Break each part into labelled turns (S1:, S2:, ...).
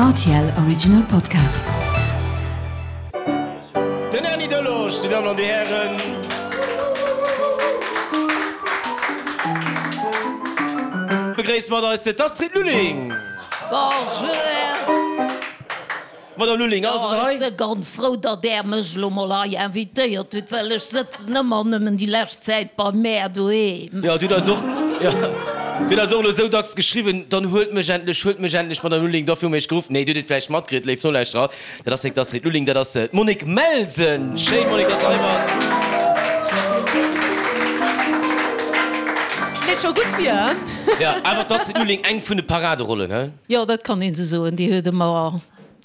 S1: Rtl Original Podcast.
S2: Den Erny Delage, Dir Dammen an Dir Hären. Begréisst mat eis d'Astrid Lulling.
S3: Bonjour.
S2: Madame Lulling, alles an der Rei?
S3: Ech si ganz frou, datt Där mech elo mol hei invitéiert hutt, well ech sëtzen ëmmer nëmmen déi lescht Zäit bei mär doheem.
S2: Jo, Dir hutt eis och, jo, Dir hutt eis och elo esou dacks geschriwwen, dann huelt mech endlech, huelt mech endlech, Madame Lulling, dofir hu mir Iech geruff. Nee, Dir hutt et vläicht matkritt, léif Nolauschterer, dat ass nik d'Astrid Lulling, dat ass d'Monique Melsen. Schéin, Monique, dass de hei bass.
S4: Leet scho gutt vir, hein?
S2: Jo, awer d'Astrid Lulling, eng vun de Paraderollen, hein?
S3: Jo, dat kann een esou soen, déi huet ëmmer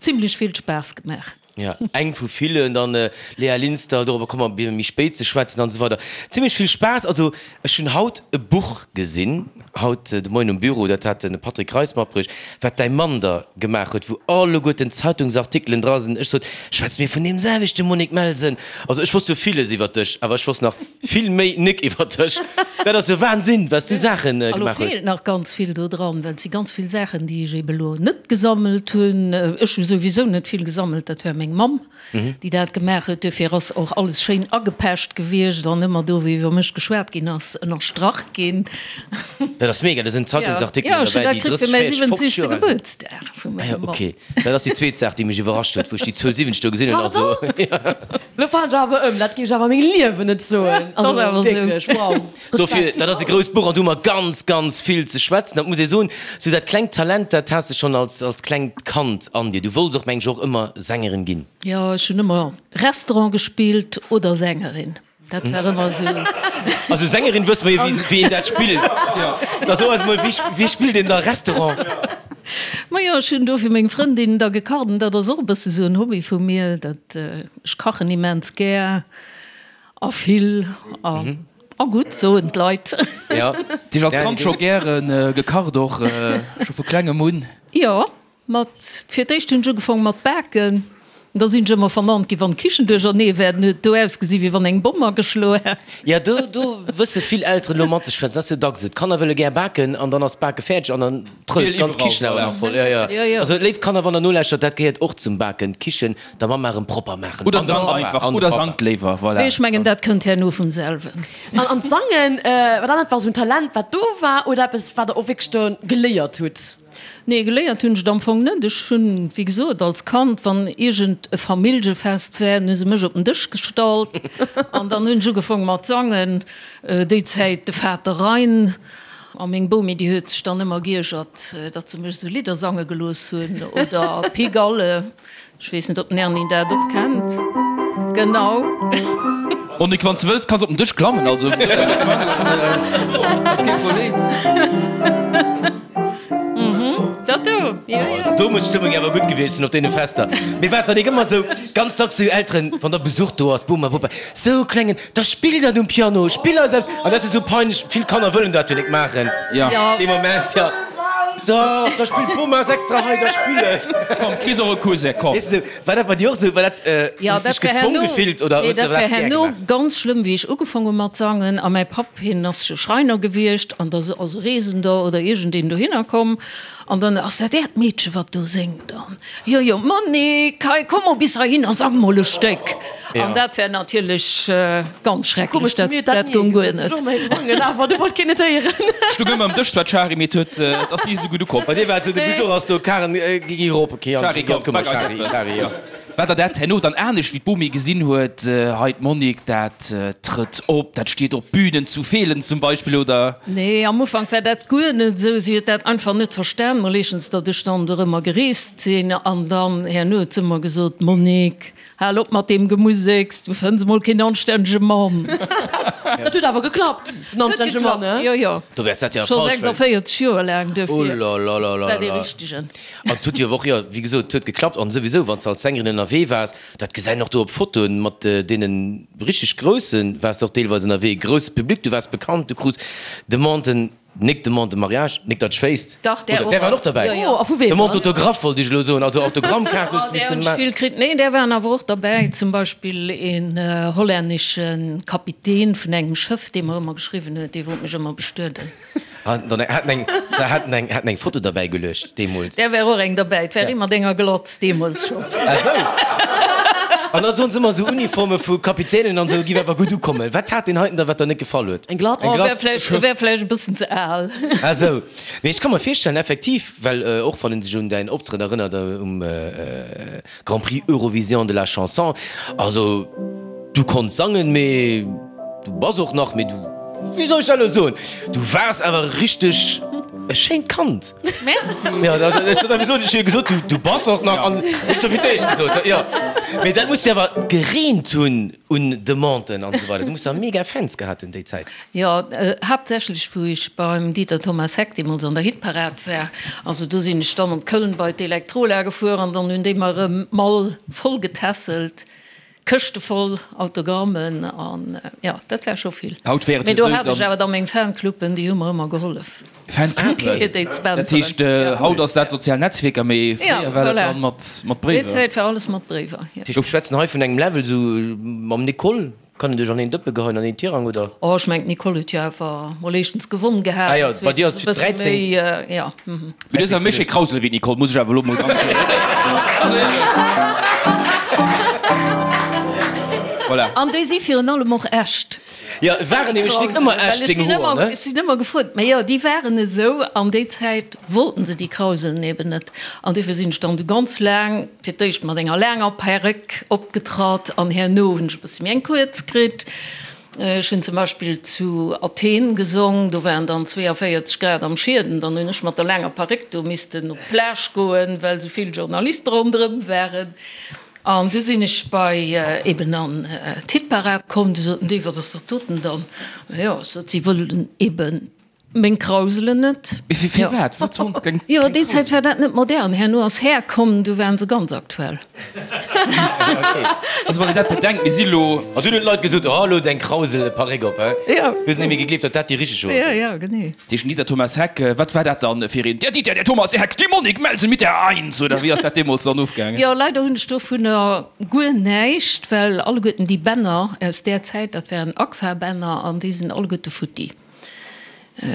S3: zimlech vill Spaass gemaach.
S2: Jo, eng vu villen, dann Léa Linster, dorobber komme mer méi spéit ze schwätzen an esou weider. Zimlech vill Spaass. Also ech hunn haut e Buch gesinn, haut de Moien um Büro, dat hat de Patrick Reis matbruecht, wat däi Mann der gemaach huet, wou alleguerten Zeitungsartikelen dra sinn. Ech sot, schwätze mir vun deem selwechte Monique Melsen? Also ech wosst jo villes iwwer dech, awer ech wosst nach Vill méi nik iwwer dech. Dat ass jo Wahnsinn, wat s du Saachen
S3: A lo
S2: gemaach hues.
S3: feelt nach ganz vill do dran, well et si ganz vill Saachen, déi ech ebe lo net gesammelt hunn. Ech hu souwisou net vill gesammelt, dat war meng Mamm, déi dat gemaach huet. Duerfir ass och alles schéin agepecht gewiescht an ëmmer do, wou iwwer mech geschwat ginn ass, ënnerstrach ginn.
S2: Dat ass mega, do sinn Zeitungsartikelen
S3: Jo, ech hunn
S2: derbäi,
S3: dat
S2: déi
S3: kritt
S2: 30,
S3: fir mäi
S2: 40, 50
S3: 70.
S2: Joer al sinn.
S3: Gebuertsdag vu
S2: Ah jo,
S3: menger Mamm.
S2: okay. Dat ass déi zweet Saach, déi mech iwwerrascht huet, wou ech déi Zuel 70 do gesinn hunn. Also,
S4: Pardon? Lo falen ech awer ëm, dat géif ech awer a mengem Liewen net soen.
S3: Dat ass awer esou.
S4: Wierklech, wow.
S2: Dofir, dat ass e grousst Buch an do hu mer ganz, ganz vill ze schwätzen. Dat muss ee soen, sou dat klengt Talent, dat has de schonn als, als klengt Kand an dir. Du wollts och, meng ech, och ëmmer Sängerin ginn.
S3: Jo, ech hunn ëmmer Restaurant gespillt oder Sängerin. Dat war ëmmer esou.
S2: Also Sängerin wësse mer jo, wéi, wéi een dat spillt. Da so eis mol, wéi, wéi spillt een da Restaurant?
S3: Majo, ech hunn do fir meng Frëndin da gekacht an dat ass och e bësse sou en Hobby vu mir, dat ech kachen immens gär a vill a a gutt, soen d'Leit.
S2: Ja.
S5: Dir hutt als Kand scho gäre gekacht och, scho vu klengem un?
S3: Jo, Mat, fir d'éischt hunn ech ugefaang mat baken, da sinn ech ëmmer vernannt ginn, wann d'Kichen duerchernee war, dann huet et do ausgesi wéi wann eng Bomm ageschloe hätt.
S2: Jo, do, do wësse vill Elteren elo matzeschwätzen, dat ass jo dacks esou, d'Kanner wëlle gär baken an dann ass d'Bake fäerdeg an dann trëllt d'ganz Kichen awer nach voll. Jo, jo, also léif Kanner, wann der nolauschtert, dat gehéiert och zum Baken, d'Kichen der Mamma erëm propper maachen.
S5: Oder
S2: An dem
S5: sangt
S2: Pappa,
S5: einfach,
S2: an dem
S5: oder
S2: Pappa.
S5: sangt léiwer, voilà.
S3: Mee ech mengen, dat kënnt herno vum selwen.
S4: An, an d'Sangen, war dat einfach esou en Talent, wat do war oder eppes, wat der och wierklech do geléiert hutt?
S3: Nee, geléiert hunn ech et am Fong net. Ech hunn, wéi gesot, als Kand, wann iergend e Familljefest war, dann hu se mech op den Dësch gestallt an dann hunn ech ugefaang mat sangen. Déi Zäit de Vater Rhein. A meng Bomi, déi huet sech dann ëmmer giergert, datt se mech esou Lidder sange gelooss hunn oder Pigalle. Ech weess net, ob den Erny dat och kennt. Genau.
S5: Monique, wann s de wëlls, kanns op den Dësch klammen, also ass kee Problem.
S3: Dat do, jo, jo.
S2: Do muss d'Stëmmung awer gutt gewiescht sinn op deene Fester. Mee wat dann nik ëmmer sou ganz dacks sou Elteren, wann da Besuch do ass, Boma, Bopa, sou klengen, da spill dat um Piano, spill eis eppes. An dat ass jo sou peinlech, vill Kanner wëllen dat jo nik maachen dee Moment, jo. Dach, da spillt d'Boma ass extra hei, da spill et.
S5: Komm, kriss och e Cousin, komm.
S2: Weess de, war dat bei dir och sou? War dat,
S3: Jo,
S2: hues dech
S3: dat war
S2: gezwong
S3: herno,
S2: gefillt oder
S3: nee,
S2: hues de
S3: dat war
S2: dat gär
S3: herno
S2: gemaach?
S3: ganz schlëmm, wéi ech ugefaang hu mat sangen. A mäi Papp, hien ass jo Schreiner gewiescht an da ass e Reesender oder iergendeen dohinner komm an dann, Ass dat äert Meedche, wat do séngt? An, Jo, jo, Monique, hei, komm mol bis heihinner, sang mol e Stéck. An dat war natierlech ganz schrecklech, dat, dat goung guer net.
S5: Stoung ëmmer um Dësch zwar d'Shari, mee et huet, et ass ni esou gutt ukomm.
S2: Bei dir war et esou, de Besuch ass do, Karen, gi erop, ok,
S5: Shari, komm, bak eis eppes. War der dat herno dann anescht, wéi d'Bomi gesinn huet, hei d'Monique, dat trëtt op, dat steet op Bünen zu Feelen zum Beispill, oder?
S3: Nee, am Ufank war dat guer net esou. Si huet dat einfach net verstan, mol éischtens, datt ech dann dorëmmer gereest sinn, an dann herno huet se ëmmer gesot, Monique, Hal op mat deem Gemuseks, du fënns emol keen anstännege Mann.
S4: Dat huet awer geklappt, den anstännege Mann, he?
S3: Jo, jo.
S2: Do wäers dat jo
S3: Scho
S2: falsch, well.
S3: 46 Joer laang, duerfir
S2: war
S3: dee richtegen.
S2: An et huet jo och, jo, wéi gesot, et huet geklappt. An souwisou, wann s de als Sängerin ënnerwee waars, dat gesäit een och do op Fotoen, mat deene richteg Groussen waars de och deelweis ënnerwee, grousse Public, du waars bekannt, du krus Demanden. Nik Demande de mariage, nik dat ech wéisst.
S3: Dach, där
S2: Oder där waren och derbäi.
S3: Jo, jo.
S4: Oh, a vu weem
S2: Demande
S4: dann?
S2: d'autographe wollt ech elo soen, also Autogrammkaarten hues
S3: Oh,
S2: de
S3: där
S2: missen
S3: hunn ech
S2: maachen.
S3: vill kritt. Nee, där waren awer och derbäi. Zum Beispill een hollännesche Kapitän vun engem Schëff, dee mer ëmmer geschriwwen huet, dee wollt mech ëmmer bestueden.
S2: Haten eng, haten eng, haten eng Foto derbäi geluecht deemools.
S3: Där war och eng derbäi. Et war ee mat enger Glotz deemools schonn.
S2: Ah sou. An da soen se ëmmer esou Uniforme vu Kapitänen an esou giff awer gutt ukommen. Wat hat deen heiten da wat der net gefall huet?
S4: Eng Glatz?
S2: Eng
S3: Oh, wär
S2: Glatz?
S3: vläicht, wär vläicht e bëssen ze al.
S2: Ah sou. Mee ech ka mer virstellen effektiv, well och wann een sech un däin Optrëtt erënnert um Grand Prix Eurovision de la Chanson, also du konns sangen, mee du bass och nach, mee du, wéi soll ech dat elo soen, du waars awer richteg e schéint Kand.
S3: Merci.
S2: Jo, ech hunn awer gesot, ech hu jo gesot, du, du bass och nach, an ech hu fir d'éischt gesot, jo. Mee dat muss jo awer gereent hunn un Demanden an esou weider. Du muss jo mega Fans gehat hunn déi Zäit.
S3: Jo, haaptsächlech wou ech beim Dieter Thomas Heck deemools an der Hitparad war. Also do sinn ech dann op Köln bei d'Electrola gefuer an dann hunn déi mer erëm d'Mall voll getässelt, Këschte voll Autogrammen an jo, dat war scho vill.
S5: Haut wär et
S3: Mee
S5: jo
S3: do
S5: esou,
S3: hat ech
S5: dann.
S3: awer da meng Fancluben, déi hu mer ëmmer gehollef.
S5: Fancluben?
S3: Fir déi ze
S5: Dat heescht,
S3: bänteren.
S5: haut ass dat sozial Netzwierker, mee
S3: Ja,
S5: fréier war dat
S3: voilà.
S5: dann mat, mat
S3: Déi
S5: Bréiwer.
S3: Zäit war alles mat Bréiwer, jo.
S2: Dat heescht, mir schwätzen hei vun engem Level esou mam Nicole. Kann een dech an een Dëppe geheien, an een Tirang, oder?
S3: Oh, ech mengen d'Nicole huet jo awer mol éischtens gewonn gehat.
S2: Ah jo, bei dir ass et fir d'dräizéngt.
S3: Jo.
S5: Mee du hues awer méi schéi Krausele wéi d'Nicole, muss ech awer elo mol ganz kloer soen. Voilà.
S3: An déi si virun allem och echt.
S2: Jo, waren nämlech nik ëmmer echt, deng Hoer, ne?
S3: Ech sinn ëmmer gefrot, mä jo, déi waren esou an déi Zäit wollten se déi Krauselen eben net. An duerfir sinn ech dann du ganz laang, fir d'éischt mat enger laanger Perréck opgetratt an herno hunn ech e bësse méi eng kuerz kritt. Ech hunn zum Beispill zu Athen gesong, do waren dann 42 Grad am Schieden, dann hunn ech mat der laanger Perréck do missten op d'Plage goen, well esou vill Journaliste ronderëm waren. An du sinn ech bei eben an d'Hitparad komm, du soten déi, wat ass dat doten dann? Jo, ech sot, si wëllen eben meng Krauselen net.
S5: Mee fir firwat? Wat sollen se keng
S3: Jo, déi Zäit war dat net modern. Herno ass Här komm, du waren se ganz aktuell.
S5: Also wann een dat bedenkt, mir si lo.
S2: An dunn hunn d'Leit gesot, oh elo deng Krausel, Paréck op, hä?
S3: Jo.
S2: Du hues net méi gegleeft, datt dat déi richteg Hoer
S3: Jo,
S2: sinn.
S3: jo, genee.
S5: Deeschen Dieter Thomas Heck, wat war dat dann fir een? Der Dieter, der Thomas Heck, die Monique Melsen mit der Eins, oder wéi ass dat deemools dann ofgaangen?
S3: Jo, leider hunn ech dovunner guer näischt, well alleguerten déi Bänner aus där Zäit, dat waren Agfa-Bänner an déi sinn alleguerte futti.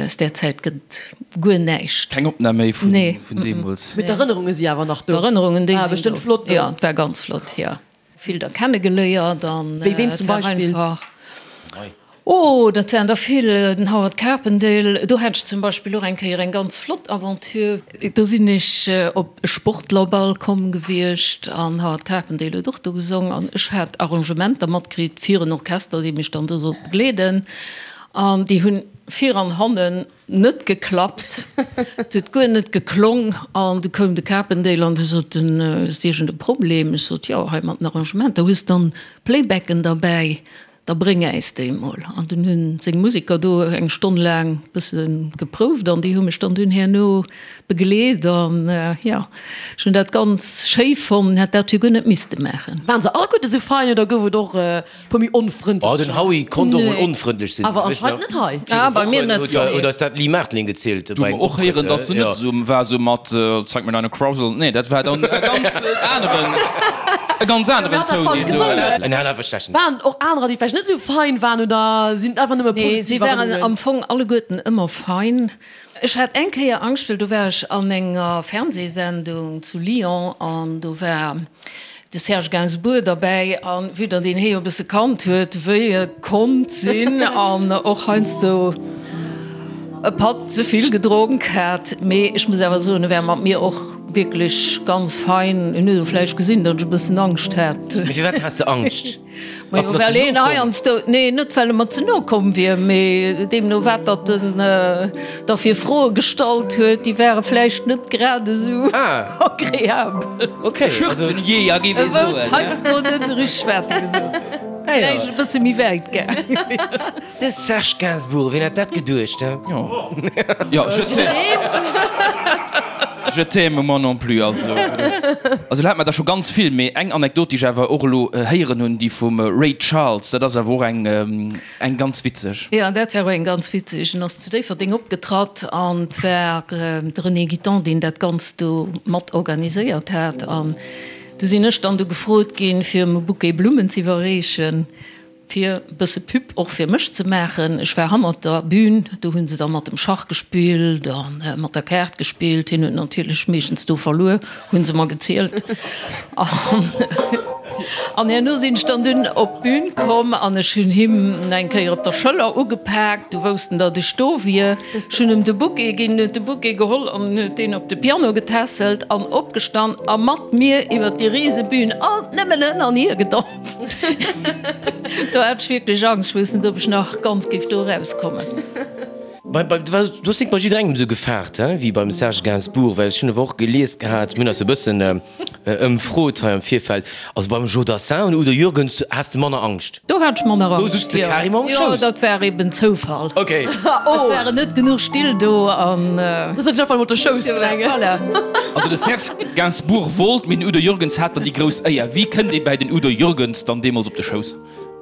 S3: Aus där Zäit gëtt et guer näischt.
S5: Keng Opnam méi vun deemools?
S4: Mee d'Erënnerunge si awer nach do.
S3: D'Erënnerungen, déi sinn do.
S4: War bestëmmt flott do.
S3: Jo, et war ganz flott, jo. Vill der kennegeléiert an
S4: Wéi ween zum Beispill?
S3: Oh, dat waren der vill, den Howard Carpendale, do hat ech zum Beispill och eng Kéier eng ganz flott Aventure. Do sinn ech op e Sportlerball komm gewiescht an Howard Carpendale huet och do gesong an ech hat Arrangementer matkritt fir en Orchester, dee mech dann do sollt begleeden an déi hunn vir an hannen Net geklappt, et huet guer net geklong an du koum de Carpendale an du sot en, hues de iergend e Problem? Ech sot, jo, hei mat den Arrangementer, hues dann Playbacken derbäi, da bréng äis déi mol. An dunn hunn seng Museker do eng Stonn laang bësse geprouft an déi hu mech dann dunn herno begleet an jo, ech hunn dat ganz schéi fonnt, hätt dat jo guer net misste maachen.
S4: Waren se alleguerte sou fein oder gouf et och Puer méi onfrëndlech.
S2: Oh, den Howie konnt och mol onfrëndlech sinn.
S4: Awer anscheinend net hei.
S3: Ah, bei mir net.
S2: Huet eis dat Lee Martling gezielt
S5: Du
S2: bei engem
S5: och héieren,
S2: Optrëtt.
S5: dass se net esou war sou mat zeig mir deine Krausel. Nee, dat war dann e ganz aneren, e ganz aneren Toun, deen do.
S2: En hat einfach schlechten.
S4: Waren et och anerer, déi vläicht net esou fein waren oder sinn et einfach nëmme
S3: Nee, si
S4: positiv
S3: waren
S4: Erënnerungen?
S3: am Fong alleguerten ëmmer fein. Ech hat eng Kéier Angscht, well do war ech an enger Fernsehsendung zu Lyon an do war de Serge Gainsbourg derbäi an vue datt een hee jo e bësse kannt huet, wéi e konnt sinn an och heiansdo e Patt ze vill gedronk hat. Mee ech muss awer soen, e war mat mir och wierklech ganz fein. En huet och vläicht gesinn, datt ech e bëssen Angscht hat.
S2: Mee firwat has de Angscht?
S3: Majo, well een heiansdo, nee, net well e mer ze no komm wier, mee deemno wat datt en da fir Froe gestallt huet, déi ware vläicht net grad esou agreabel.
S5: Schürzenjäger, géif
S3: E
S5: ee
S3: wousst
S5: soen.
S3: heiansdo net esou richteg wat e gesot huet. Vläicht e bësse méi wäit gaangen.
S2: De Serge Gainsbourg, wien hätt dat geduecht, he?
S5: Jo, jo, je t'aime. Je t'aime, moi non plus. Also, also lo hat mer der scho ganz vill, mee eng Anekdot, déi ech awer och elo héieren hunn, déi vum Ray Charles, dat ass awer och eng, eng ganz witzeg.
S3: Jo, dat war och eng ganz witzeg. En ass zu Déifferdeng opgetratt an et war de René Guitton, deen dat Ganzt do mat organiséiert hat. An du sinn ech dann du gefrot ginn, fir em e Bouquet Blummen z'iwwerreechen. Fir e bësse Pub och fir mech ze maachen. Ech war hannert der Bühn, do hu se da mat dem Schach gespillt a mat der Kaart gespillt. Hien huet natierlech meeschtens do verluer, hu se mer gezielt. An herno sinn ech dann dunn op d'Bühn komm an ech hunn him eng Kéier op der Schëller ugepaakt. Du wousst en, datt ech do wier. Ech hunn em de Bouquet ginn, en huet de Bouquet geholl an huet deen op de Piano getässelt an opgestan a mat mir iwwer déi rise Bühn alt nëmmen hënn an hier gedanzt. Do hat ech wierklech Angscht, ech wousst net, ob ech nach ganz géif do erauskommen.
S2: Du hues net bei jidderengem esou gefaart, he, wéi beim Serge Gainsbourg, well ech hunn awer och gelies gehat, mir hunn eis e bëssen ëmfrot hei am Virfeld, also beim Joe Dassin an Udo Jürgens has de manner Angscht.
S3: Do hat ech manner
S2: Angscht, jo. Do sutz de carrément um
S3: Schouss. Jo, dat war eben Zoufall.
S2: Ok.
S3: Et waren net genuch Still do an.
S4: Du sëtz einfach emol op der Schouss vun engem.
S3: Voilà.
S5: Also de Serge Gainsbourg wollt, mee den Udo Jürgens hat dann déi grouss Éier. Wéi kënnt ee bäi den Udo Jürgens dann deemools op de Schouss?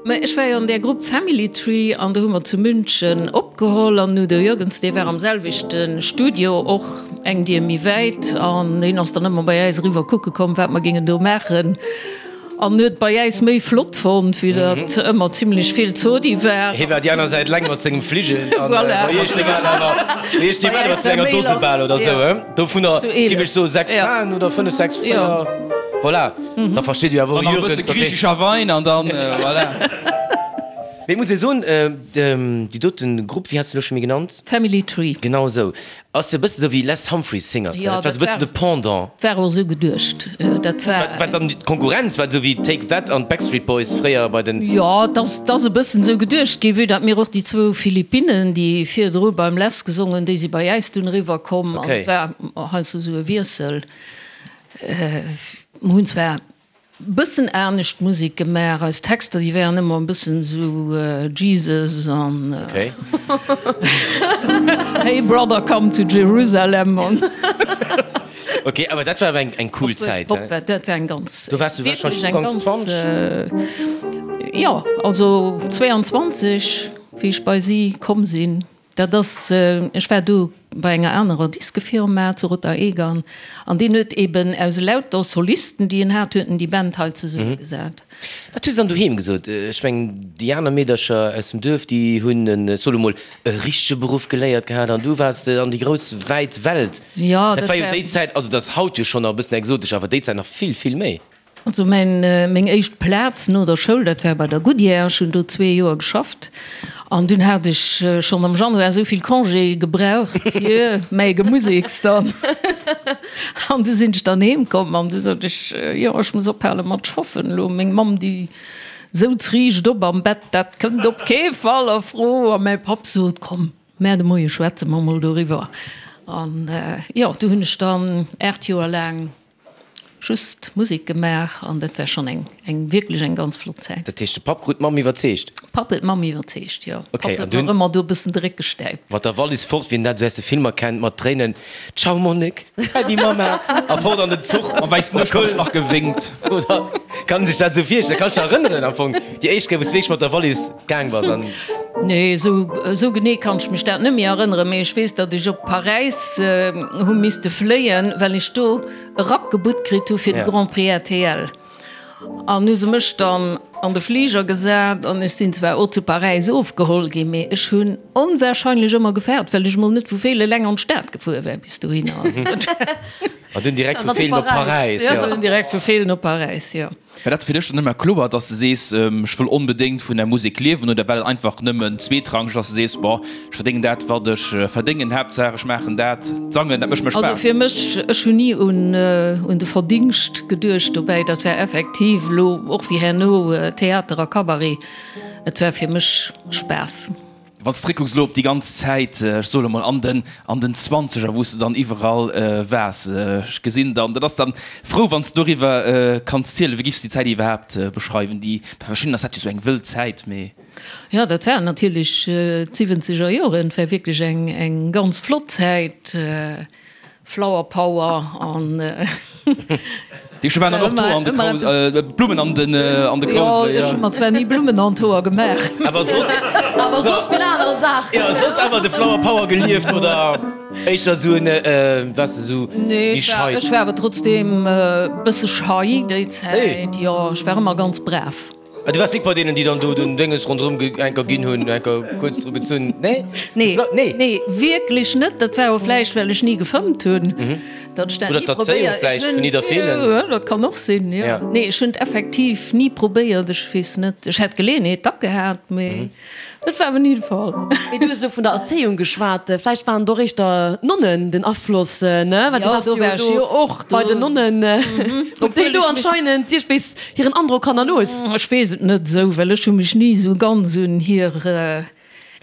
S3: Mä ech war jo an där Grupp Family Tree an do hu mer zu München opgeholl an den Udo Jürgens, dee war am selwechte Studio, och eng Dier méi wäit an hien ass dann ëmmer bei äis eriwwer kucke komm, wat mer géingen do maachen. An huet bei äis méi flott fonnt, wéi datt ëmmer zimlech vill Zodi war.
S2: Hie war déi aner Säit eleng mat sengem Fligel an bei iech seng aner awer, mee ech, déi waren awer zu enger Dose bal oder sou, he? Dovunner giff ech soen 6 Fraen oder 5, 6, 4, voilà, da versteet Dir awer och
S5: An nach e bësse
S2: Jürgens, datt hie.
S5: griichescher Wein an dann, voilà.
S2: Mee et muss ee soen, déi doten Grupp, wéi has de elo scho méi genannt?
S3: Family Tree.
S2: Genau esou. Ass jo e bëssen esou wéi Les Humphries Singers, dat war esou e bëssen de Pendant.
S3: War och esou geduecht. Dat war.
S2: Wat dann d'Konkurrenz war, esou wéi Take That an d'Backstreet Boys fréier bei den.
S3: Jo, et ass, et ass e bëssen esou geduecht ginn, vue datt mir och déi zwou Philippinnen, déi virdru beim Les gesongen hunn, déi si bei äis dunn eriwwer komm. Also et war heiansdo esou e Wiessel. Mir hunn zwar Bëssen anescht Musek gemaach, eis Texter déi waren ëmmer e bëssen esou Jesus an Hey brother come to Jerusalem an.
S2: Ok, awer dat war awer eng cool Zäit, he?
S3: Dat war eng ganz,
S2: Do waars du warscheinlech ugangs 20?
S3: Jo, also 22 wéi ech bei si komm sinn. Dat ass, ech war do bei enger anerer Diskefirma zu Rotterdam an deen huet eben aus elauter Solisten, déi en hat, huet en déi Band hei zesummegesat.
S2: Wat hu se dann doheem gesot? Ech mengen, déi aner Meedercher aus dem Duerf, déi hunn en, ech soe lo mol, e richtege Beruff geléiert gehat an du waars an déi grouss wäit Welt.
S3: Jo,
S2: Dat war jo déi Zäit, also dat ass haut jo schonn nach e bëssen exotesch, awer déi Zäit nach vill, vill méi.
S3: Also mäin, meng éischt Plaz no der Schoul, dat war bei der Goodyear. Ech hunn do zwee Joer geschafft an dunn hat ech schonn am Januar esou vill Congé gebraucht fir mäi Gemusiks dann. An du sinn ech dann heem komm an du sot ech, jo ech muss ophale mat schaffen elo. Meng Mamm déi souz riicht op am Bett, dat kënnt op kee Fall a Fro. A mäi Papp sot, komm, mä de Moie schwätze mer mol doriwwer. An jo, du hunn ech dann 8 Joer laang Just Musek gemaach an dat war schonn eng eng wierklech eng ganz flott Zäit.
S2: Dat heescht de Papp krut d'Mamm iwwerzeegt?
S3: Papp huet d'Mamm iwwerzeegt, jo.
S2: Ok,
S3: Papp
S2: an
S3: huet
S2: dunn?
S3: nach ëmmer do e bëssen de Réck gestäipt.
S2: Mat der Wallis fort, wien dat esou aus de Filmer kennt, mat Tréinen, Ciao Monique, äddi Mamma, a fort an den Zuch.
S5: Mam wäissen Uschwänz nach gewénkt.
S2: Oder kann een sech dat esou virstellen? Kanns dech erënneren am Fong déi éischt Kéier wou s de wierklech mat der Wallis gaang bass an.
S3: Nee, esou esou genee kann ech mech dat net méi erënneren, mee ech weess, datt ech op Paräis hu misste fléien, well ech do e Rack gebutt kritt hu fir de Grand Prix rtl. An hu se mech dann an de Fliger gesat an ech sinn zwar och zu Paräis ofgeholl ginn, mee ech hunn onwahrscheinlech ëmmer gefaart, well ech mol net vu Feelen eleng an d'Stad gefuer war bis dohinner.
S2: An dunn direkt vu Feelen op Paräis, jo.
S3: Dunn direkt vu Feelen op Paräis, jo.
S5: War dat fir dech dann ëmmer kloer, dass de sees, ech wëll onbedéngt vun der Musek liewen, oder war dat einfach nëmmen zweetrangeg, dass de sees, bon, ech verdéngen dat, wat ech verdéngen, Haaptsaach ech maachen dat, d'Sangen, dat mécht mir
S3: Also
S5: Spaass?
S3: fir mech, ech hunn ni un un de Verdingscht geduecht dobäi. Dat war effektiv elo och wéi herno Theater a Cabaret, et war fir mech Spaass.
S5: Wann s de zréckkucks elo op déi ganz Zäit, ech soe lo mol an den an den Zwanzeger, wou s de dann iwwerall waars, ech gesinn dann, dat ass dann frou, wann s de doriwwer kanns zielen. Wéi giffs de déi Zäit iwwerhaapt beschreiwen? Déi, bei verschiddenen ass dat jo esou eng wëll Zäit, mee.
S3: Jo, dat waren natierlech d'siwwenzeger Joren, et war wierklech eng eng ganz flott Zäit. Flower Power an.
S5: Déi waren dann och do an de Kraus, Blummen an den an de Kraus.
S3: Jo, ech hu mer zwar ni Blummen an d'Hoer gemaach.
S2: Awer soss.
S4: Awer soss vill aner Saachen.
S2: Jo, soss awer de Flower Power gelieft oder éischter esou en, waars de esou
S3: Nee,
S2: méi schei?
S3: ech war awer trotzdeem e bësse schei déi Zäit. Jo, ech war ëmmer ganz brav.
S2: Ah, du waars nik bei deenen, déi dann do den Dénges ronderëm enker ginn hunn, enker kuerz dru gezunn? Nee?
S3: Nee,
S2: Nee?
S3: nee, wierklech net. Dat war och vläicht, well ech ni gefëmmt hunn, datt ech dat
S2: Oder
S3: ni
S2: d'Erzéiung
S3: probéiert.
S2: vläicht vun Nidderfeelen.
S3: Jo, dat kann och sinn, jo.
S2: Ja.
S3: Nee, ech hunn et effektiv ni probéiert. Ech weess net, ech hätt d'Geleeënheet dack gehat, mee dat war awer ni de Fall.
S4: Mee du hues elo vun der Erzéiung geschwat. Vläicht waren et och éischter d'Nonnen den Afloss, ne? Well du
S3: Jo,
S4: waars
S3: do
S4: jo
S3: war ech
S4: do
S3: jo och
S4: bei
S3: do.
S4: den Nonnen. Ob déi do anscheinend iergendwéis Hiren Androck hannerlooss?
S3: Ech weess et net esou, well ech hu mech ni esou ganz un hir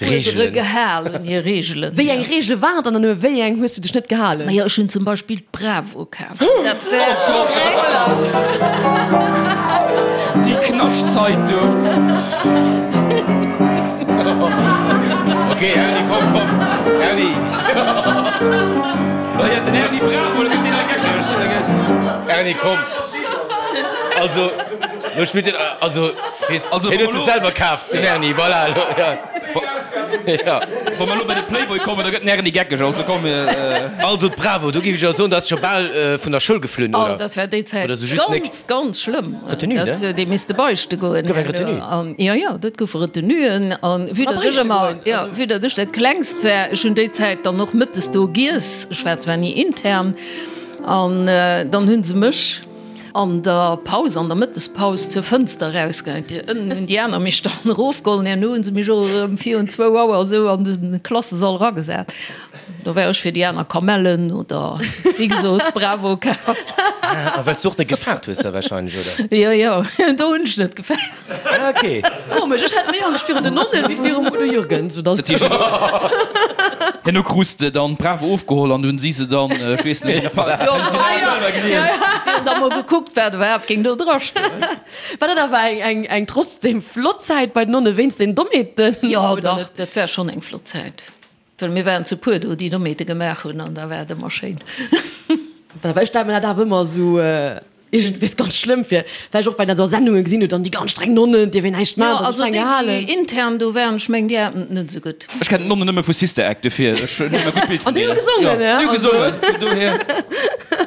S3: Uerdere gehalen, hir Reegelen.
S4: Wéi eng Reegele waren et an un wéi eng hues du dech net gehalen?
S3: Majo, ech hunn zum Beispill d'Bravo kaf. Dat war schrecklech.
S5: Déi Knaschtzeitung!
S2: Ok, Erni, komm, komm, Erni!
S5: Oh jo, den Erni Bravo, da gëtt deen hei geckeg.
S2: Erni, komm! Also, lo spillt den, also, weess,
S5: Also,
S2: hien
S5: wa
S2: huet
S5: mer
S2: se
S5: lo-
S2: selwer kaaft, den Erni, voilà, lo, ja. Ja.
S5: Wa mer lo bei de Playboy kommen, da gëtt den Erni geckeg, also komm, mir.
S2: Also, d'Bravo, do géif ech jo soen, dat ass scho bal vun der Schoul geflunn,
S3: Oh,
S2: oder?
S3: dat war déi Zäit
S2: Oder sou just nek.
S3: ganz, ganz schlëmm.
S2: Retenue, ne?
S3: Dat huet ee misste beichte goen.
S2: Gouf eng Retenue?
S3: An, jo, jo, dat goufe Retenuen. An vue datt ech
S4: beichte
S3: ëmmer,
S4: goen,
S3: jo,
S4: also.
S3: vue datt ech dat Klengst war, ech hunn déi Zäit dann och mëttes do giess, ech war zwar ni intern, an dann hu se mech an der Paus, an der Mëttespaus zur Fënster erausgehäit. Déi ënnen hunn déi aner mech dann erofgeholl an herno hu se mech och erëm virun zwou Auer esou an de Klassesall eragesat. Do war ech fir déi aner Kamellen oder wéi gesot Bravo kaf.
S2: Ah, well s du och net gefaart hues da wahrscheinlech, oder?
S3: Jo, jo, do hunn ech net gefaart.
S2: Ah, ok.
S4: Komesch, ech hat méi Angscht virun den Nonnen wéi virum Udo Jürgens, sou dass.
S5: Herno krus de dann d'Bravo ofgeholl an dunn si se dann, ech weess net,
S3: Jo, si hunn da mol gekuckt, wat iwwerhaapt géing do dra stoen.
S4: War dat awer eng, eng, eng trotzdem flott Zäit bei den Nonnen, wéinst den Dommheeten?
S3: Jo, dach, dat war schonn eng flott Zäit. Well mir waren zu puer do, déi Dommheete gemaach hunn an da war et ëmmer schéin.
S4: Well ech stelle mir dat awer ëmmer esou iergendwéis ganz schlëmm vir, vläicht och well een dat a Sendunge gesinn huet, dann déi ganz streng Nonnen, dierf een näischt
S3: Jo,
S4: maachen,
S3: also
S4: streng
S3: déi, déi
S4: gehalen.
S3: intern do waren, ech mengen, déi haten et net esou gutt.
S5: Ech kennen d'Nonnen nëmme vu Sister Act, dofir ech hunn e gutt Bild vun
S4: An déi hu
S5: deenen.
S4: gesongen,
S5: Jo,
S4: ja,
S5: déi hu
S4: also.
S5: gesongen, vun dohier.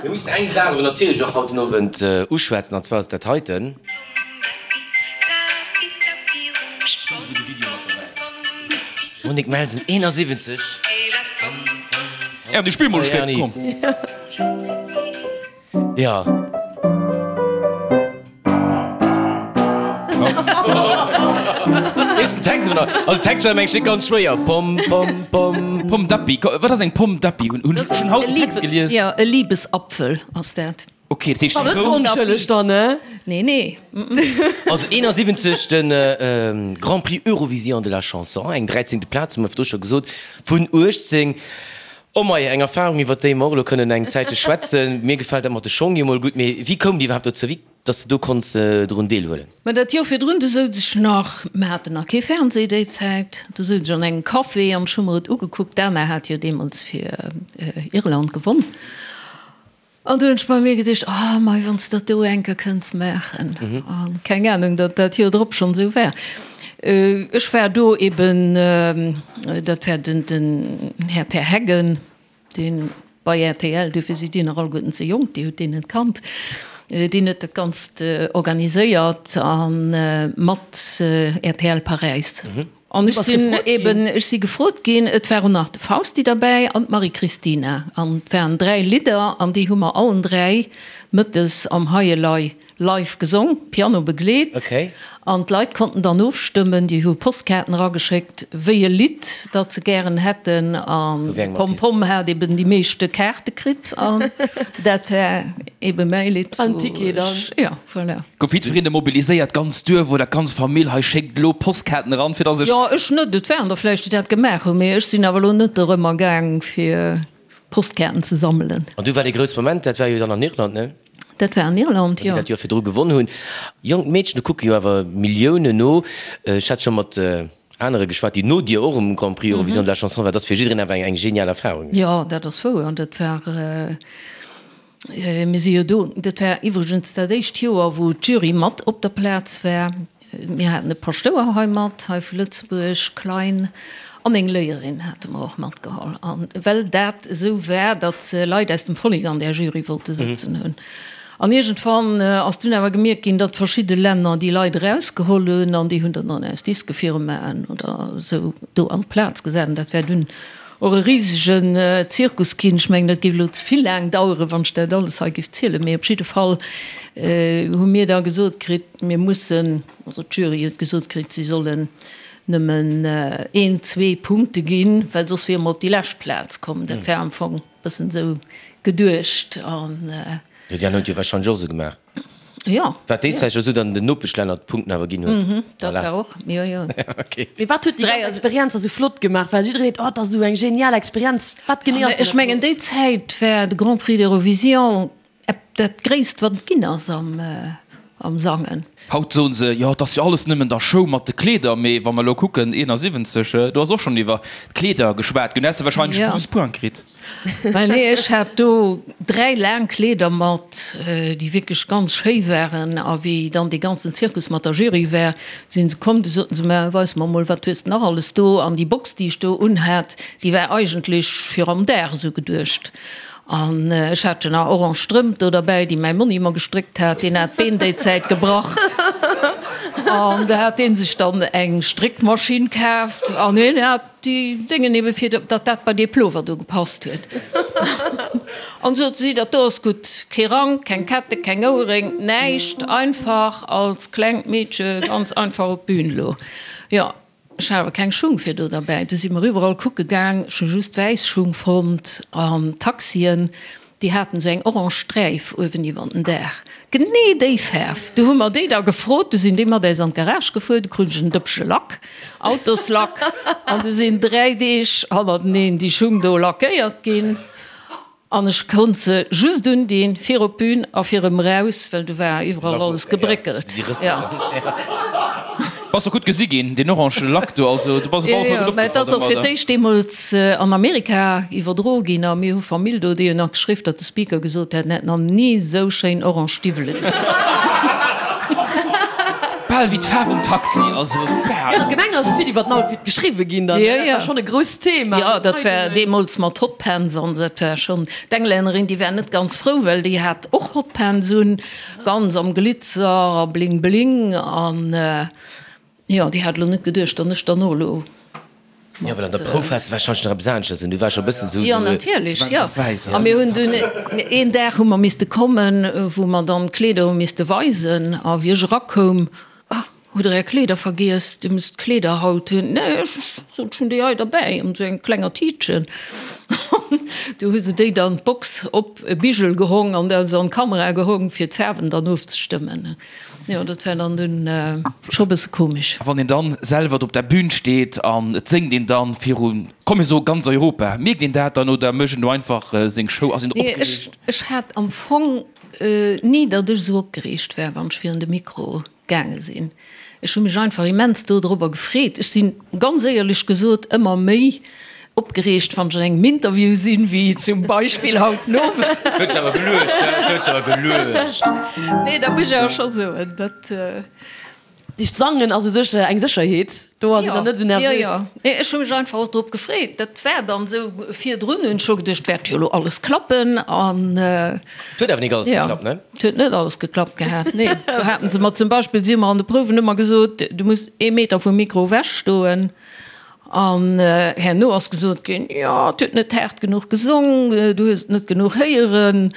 S2: Mir mussen eng Saach awer natierlech och haut den Owend uschwätzen, an zwar ass et dat heiten. Monique Melsen, 71.
S5: Erni, spill mol e Stéck, komm.
S2: Ja. Weess den Text awer nach? Also Text war mengen ech net ganz schwéier. Pom pom pom.
S5: Pomme d'api, wat ass eng Pomme d'api? Hunn ech schonn haut den Text gelies?
S3: Jo, e Libesapfel ass dat.
S5: Ok, dat heescht
S4: War net sou
S5: rout.
S4: onschëlleg dann, ne?
S3: Nee, nee.
S2: Also 71 de Grand Prix Eurovision de la Chanson, eng dräizéngte Plaz, hu mer virdru scho gesot, vun 18. Oh mei, eng Erfahrung, iwwer déi mer och elo kënnen eng Zäitche schwätzen. Mir gefält dat mat de Schong jo mol gutt, mee wéi koum Dir iwwerhaapt dozou, wéi dass de do konns drun deelhuelen?
S3: Mä dat Joer virdrun, du souz ech nach, mer haten nach kee Fernseh déi Zäit, du souz ech an engem Café an ech hu mer et ugekuckt, d'Anna hat jo deemools fir Irland gewonn. An du hunn ech bei mir geduecht, oh mei, wann s de dat do eng Kéier kënns maachen. A keng Anung, datt dat Joer drop schonn esou war. Ech war do eben, dat war den, den Här Terheggen, dee bei rtl, duerfir sidd Dir nach alleguerten ze jonk, Dir hutt deen net kannt, deen huet dat Ganzt organiséiert a mat rtl Paräis. An ech sinn eben, ech si gefrot ginn, et war och nach de Fausti derbäi an d'Marie-Christina. An et waren 3 Lidder an déi hu mer allen 3 mëttes am Hei Elei live gesong, Piano begleet. An d'Leit konnten dann ofstëmmen, déi hu Postkaarten erageschéckt, wéi e Lidd dat se gären hätten. An de Pom Pom hat eben déi meeschte Kaarte kritt an dat war eben mäi Lidd, wou ech, jo. Voilà.
S5: Gouf jiddwereen mobiliséiert, d'ganz Duerf oder d'ganz Famill, hei schéckt elo Postkaarten eran, fir dass ech.
S3: Jo, ech net. Et waren der vläicht, déi dat gemaach hunn, mee ech sinn awer elo net dorëmmer gaang, fir Postkaarten ze sammelen.
S2: An du war dee grousse Moment, dat war jo dann an Irland, ne?
S3: Dat war an Irland, jo.
S2: Déi dat Joer virdru gewonn hunn. Jonk Meedchen, do kucke jo awer Milliounen no. Ech hat scho mat anere geschwat, déi no dir och um Grand Prix Eurovision de la Chanson war. Dat ass fir jiddereen awer eng genial Erfarung.
S3: Jo, dat ass wouer. An dat war. Mir si jo do, dat war iwwregens dat éischt Joer, wou d'Jury mat op der Plaz war. Mir haten e Paschtouer hei mat, hei vu Lëtzebuerg, Klein, an eng Léierin hate mer och matgeholl. A well dat esou war, datt se Leit aus dem Vollek an där Jury wollte sëtzen hunn. An iergendwann ass dunn awer gemierkt ginn, datt verschidde Länner déi Leit erausgeholl hunn an déi hunn dann dann aus Diskefirmaen oder esou do an d'Plaz gesat. An dat war dunn och e risegen Zirkus ginn. Ech mengen, dat géif elo ze vill laang daueren, wann ech dat alles hei géif zielen. Mee op jidde Fall hu mir da gesot kritt, mir mussen, also d'Jury huet gesot kritt, si sollen nëmmen een, zwee Punkte ginn, well soss wiere mer op déi lescht Plaz komm. Dat war am Fong. Bëssen sou geduecht an.
S2: Jo, déi aner hunn et jo wahrscheinlech och esou gemaach.
S3: Jo.
S2: Wat déi Zäit jo esou dann den Nopeschlänner d'Punkten awer ginn huet.
S3: Mhm, dat war och, jo, jo.
S2: Ok.
S4: Mee wat huet déi ganz Experienz da sou flott gemaach? Well jiddereen seet, oh, dat ass esou eng genial Experienz. Wat genee ass
S3: Ech
S4: dann dat
S3: mengen, déi
S4: Flottst?
S3: Zäit war de Grand Prix d'Eurovision Dat gréisst wat et ginn ass am Sangen.
S5: Haut soen se, jo et ass jo alles nëmmen der Show mat de Kleeder, mee wa mer elo kucken, 71, do ass och schonn iwwer d'Kleeder geschwat ginn, do häss de wahrscheinlech
S3: Ja.
S5: 12 Points kritt.
S3: Well nee, ech hat do 3 laang Kleeder mat, déi wierklech ganz schéi waren, a wéi dann dee ganzen Zirkus mat der Jury war, sinn se komm, du soten se, mä weis mer mol, wat hues de nach alles do? An déi Box, déi ech do unhat, déi war eigentlech fir am Dag esou geduecht. An ech hat jo nach orange Strëmp do derbäi, déi mäi Monni mer gestréckt hat. Deen hat d'Been déi Zäit gebrach. An da hat dee sech dann eng Stréckmaschinn kaaft an hien hat déi Déngen ebe fir datt dat bei dee Plover do gepasst huet. An sot si, dat do ass gutt, kee Rank, keng Kette, keng Ouerréng, näischt, einfach als klengt Meedche ganz einfach op d'Bün elo. Jo. Ech hat awer keng Schung fir do derbäi. Du si mer iwwerall kucke gaang. Ech hu just wäiss Schung fonnt an Taxien, déi haten esou eng orange Sträif uewen iwwer den Daach. Genee déi Faarf. Du hu mer déi da gefrot. Du sinn déi mat äis an d'Garage gefuer. Du krut ech en Dëppche Lack, Autoslack. An du sinn 3 Deeg hannerteneen déi Schung do lackéiert ginn. An ech konnt se just undinn fir op d'Bün a fir erëm eraus, well do war iwwerall alles gebréckelt.
S5: Bass och gutt gesi ginn, deen orange Lack do, also du bass op alle Fall gutt
S3: Mä et ass och fir
S5: opgefall domadder.
S3: d'éischt deemools an Amerika iwwerdro ginn a mir hu Famill do, déi hunn nach geschriww, datt de Speaker gesot hätt, en hätt nach ni esou schéin orange Stiwwele gesinn.
S5: Bal wéi d'Faarf um Taxi, also bal.
S4: Allgemeng ass vill iwwer den Outfit geschriwwe ginn dann,
S3: Jo,
S4: dat
S3: jo.
S4: war schonn e grousst Thema.
S3: Jo, dat war deemools mat Hotpants an dat war schonn, d'Englännerin, déi war net ganz frou, well déi hat och Hotpants un, ganz am Glitzer a Bling Bling an jo, déi hat elo net geduecht, datt ech dann och elo
S2: Jo, well an der Prouf waars de warscheinlech nach eppes aneschters un. Du waars scho e bëssen esou.
S3: Jo, natierlech, jo. A mir hunn dunn een Dag hu mer misste kommen, wou mer dann d'Kleeder hu misste weisen. A wéi ech erakoum, Ah, hutt Der Är Kleeder vergiess? Dir musst d'Kleeder haut hunn. Nee, ech sot, ech hunn déi hei derbäi an esou engem klenger Tiitchen. Du hu se déi dann d'Box op e Bigel gehong an da se an d'Kamera gehong, fir d'Faarwen dann ofzestëmmen. Jo, dat war dann dunn scho bësse komesch.
S5: A wann een dann selwer do op der Bühn steet an et séngt een dann virun, komm mir soe ganz Europa, mierkt een dat dann oder mécht een do einfach seng Show? Ass een do
S3: Nee,
S5: opgereegt?
S3: ech hat am Fong ni, datt ech esou opgereegt war, wann ech virun de Mikro gaange sinn. Ech hu mech einfach immens dodrobber gefreet. Ech sinn, ganz éierlech gesot, ëmmer méi Opgereegt wann ech an engem Interview sinn, wéi zum Beispill haut den Owend.
S2: Dat huet sech awer geluecht, dat huet sech awer geluecht.
S3: Nee, dat muss ech awer scho soen, dat.
S4: Dicht Sangen ass u sech eng Sécherheet, do ass een dann net esou nervös.
S3: Jo, jo. Nee, ech hu mech einfach och drop gefreet. Dat war dann esou, virdrun hunn ech scho geduecht, wäert jo elo alles klappen an.
S2: Et huet awer nik alles geklappt, ne?
S3: Et huet net alles geklappt gehat, nee. Do haten se mer zum Beispill, si hu mer an de Prouwen ëmmer gesot, du muss ee Meter vum Mikro ewech stoen. An herno ass gesot ginn, jo, et huet net haart genuch gesong, du hues et net genuch héieren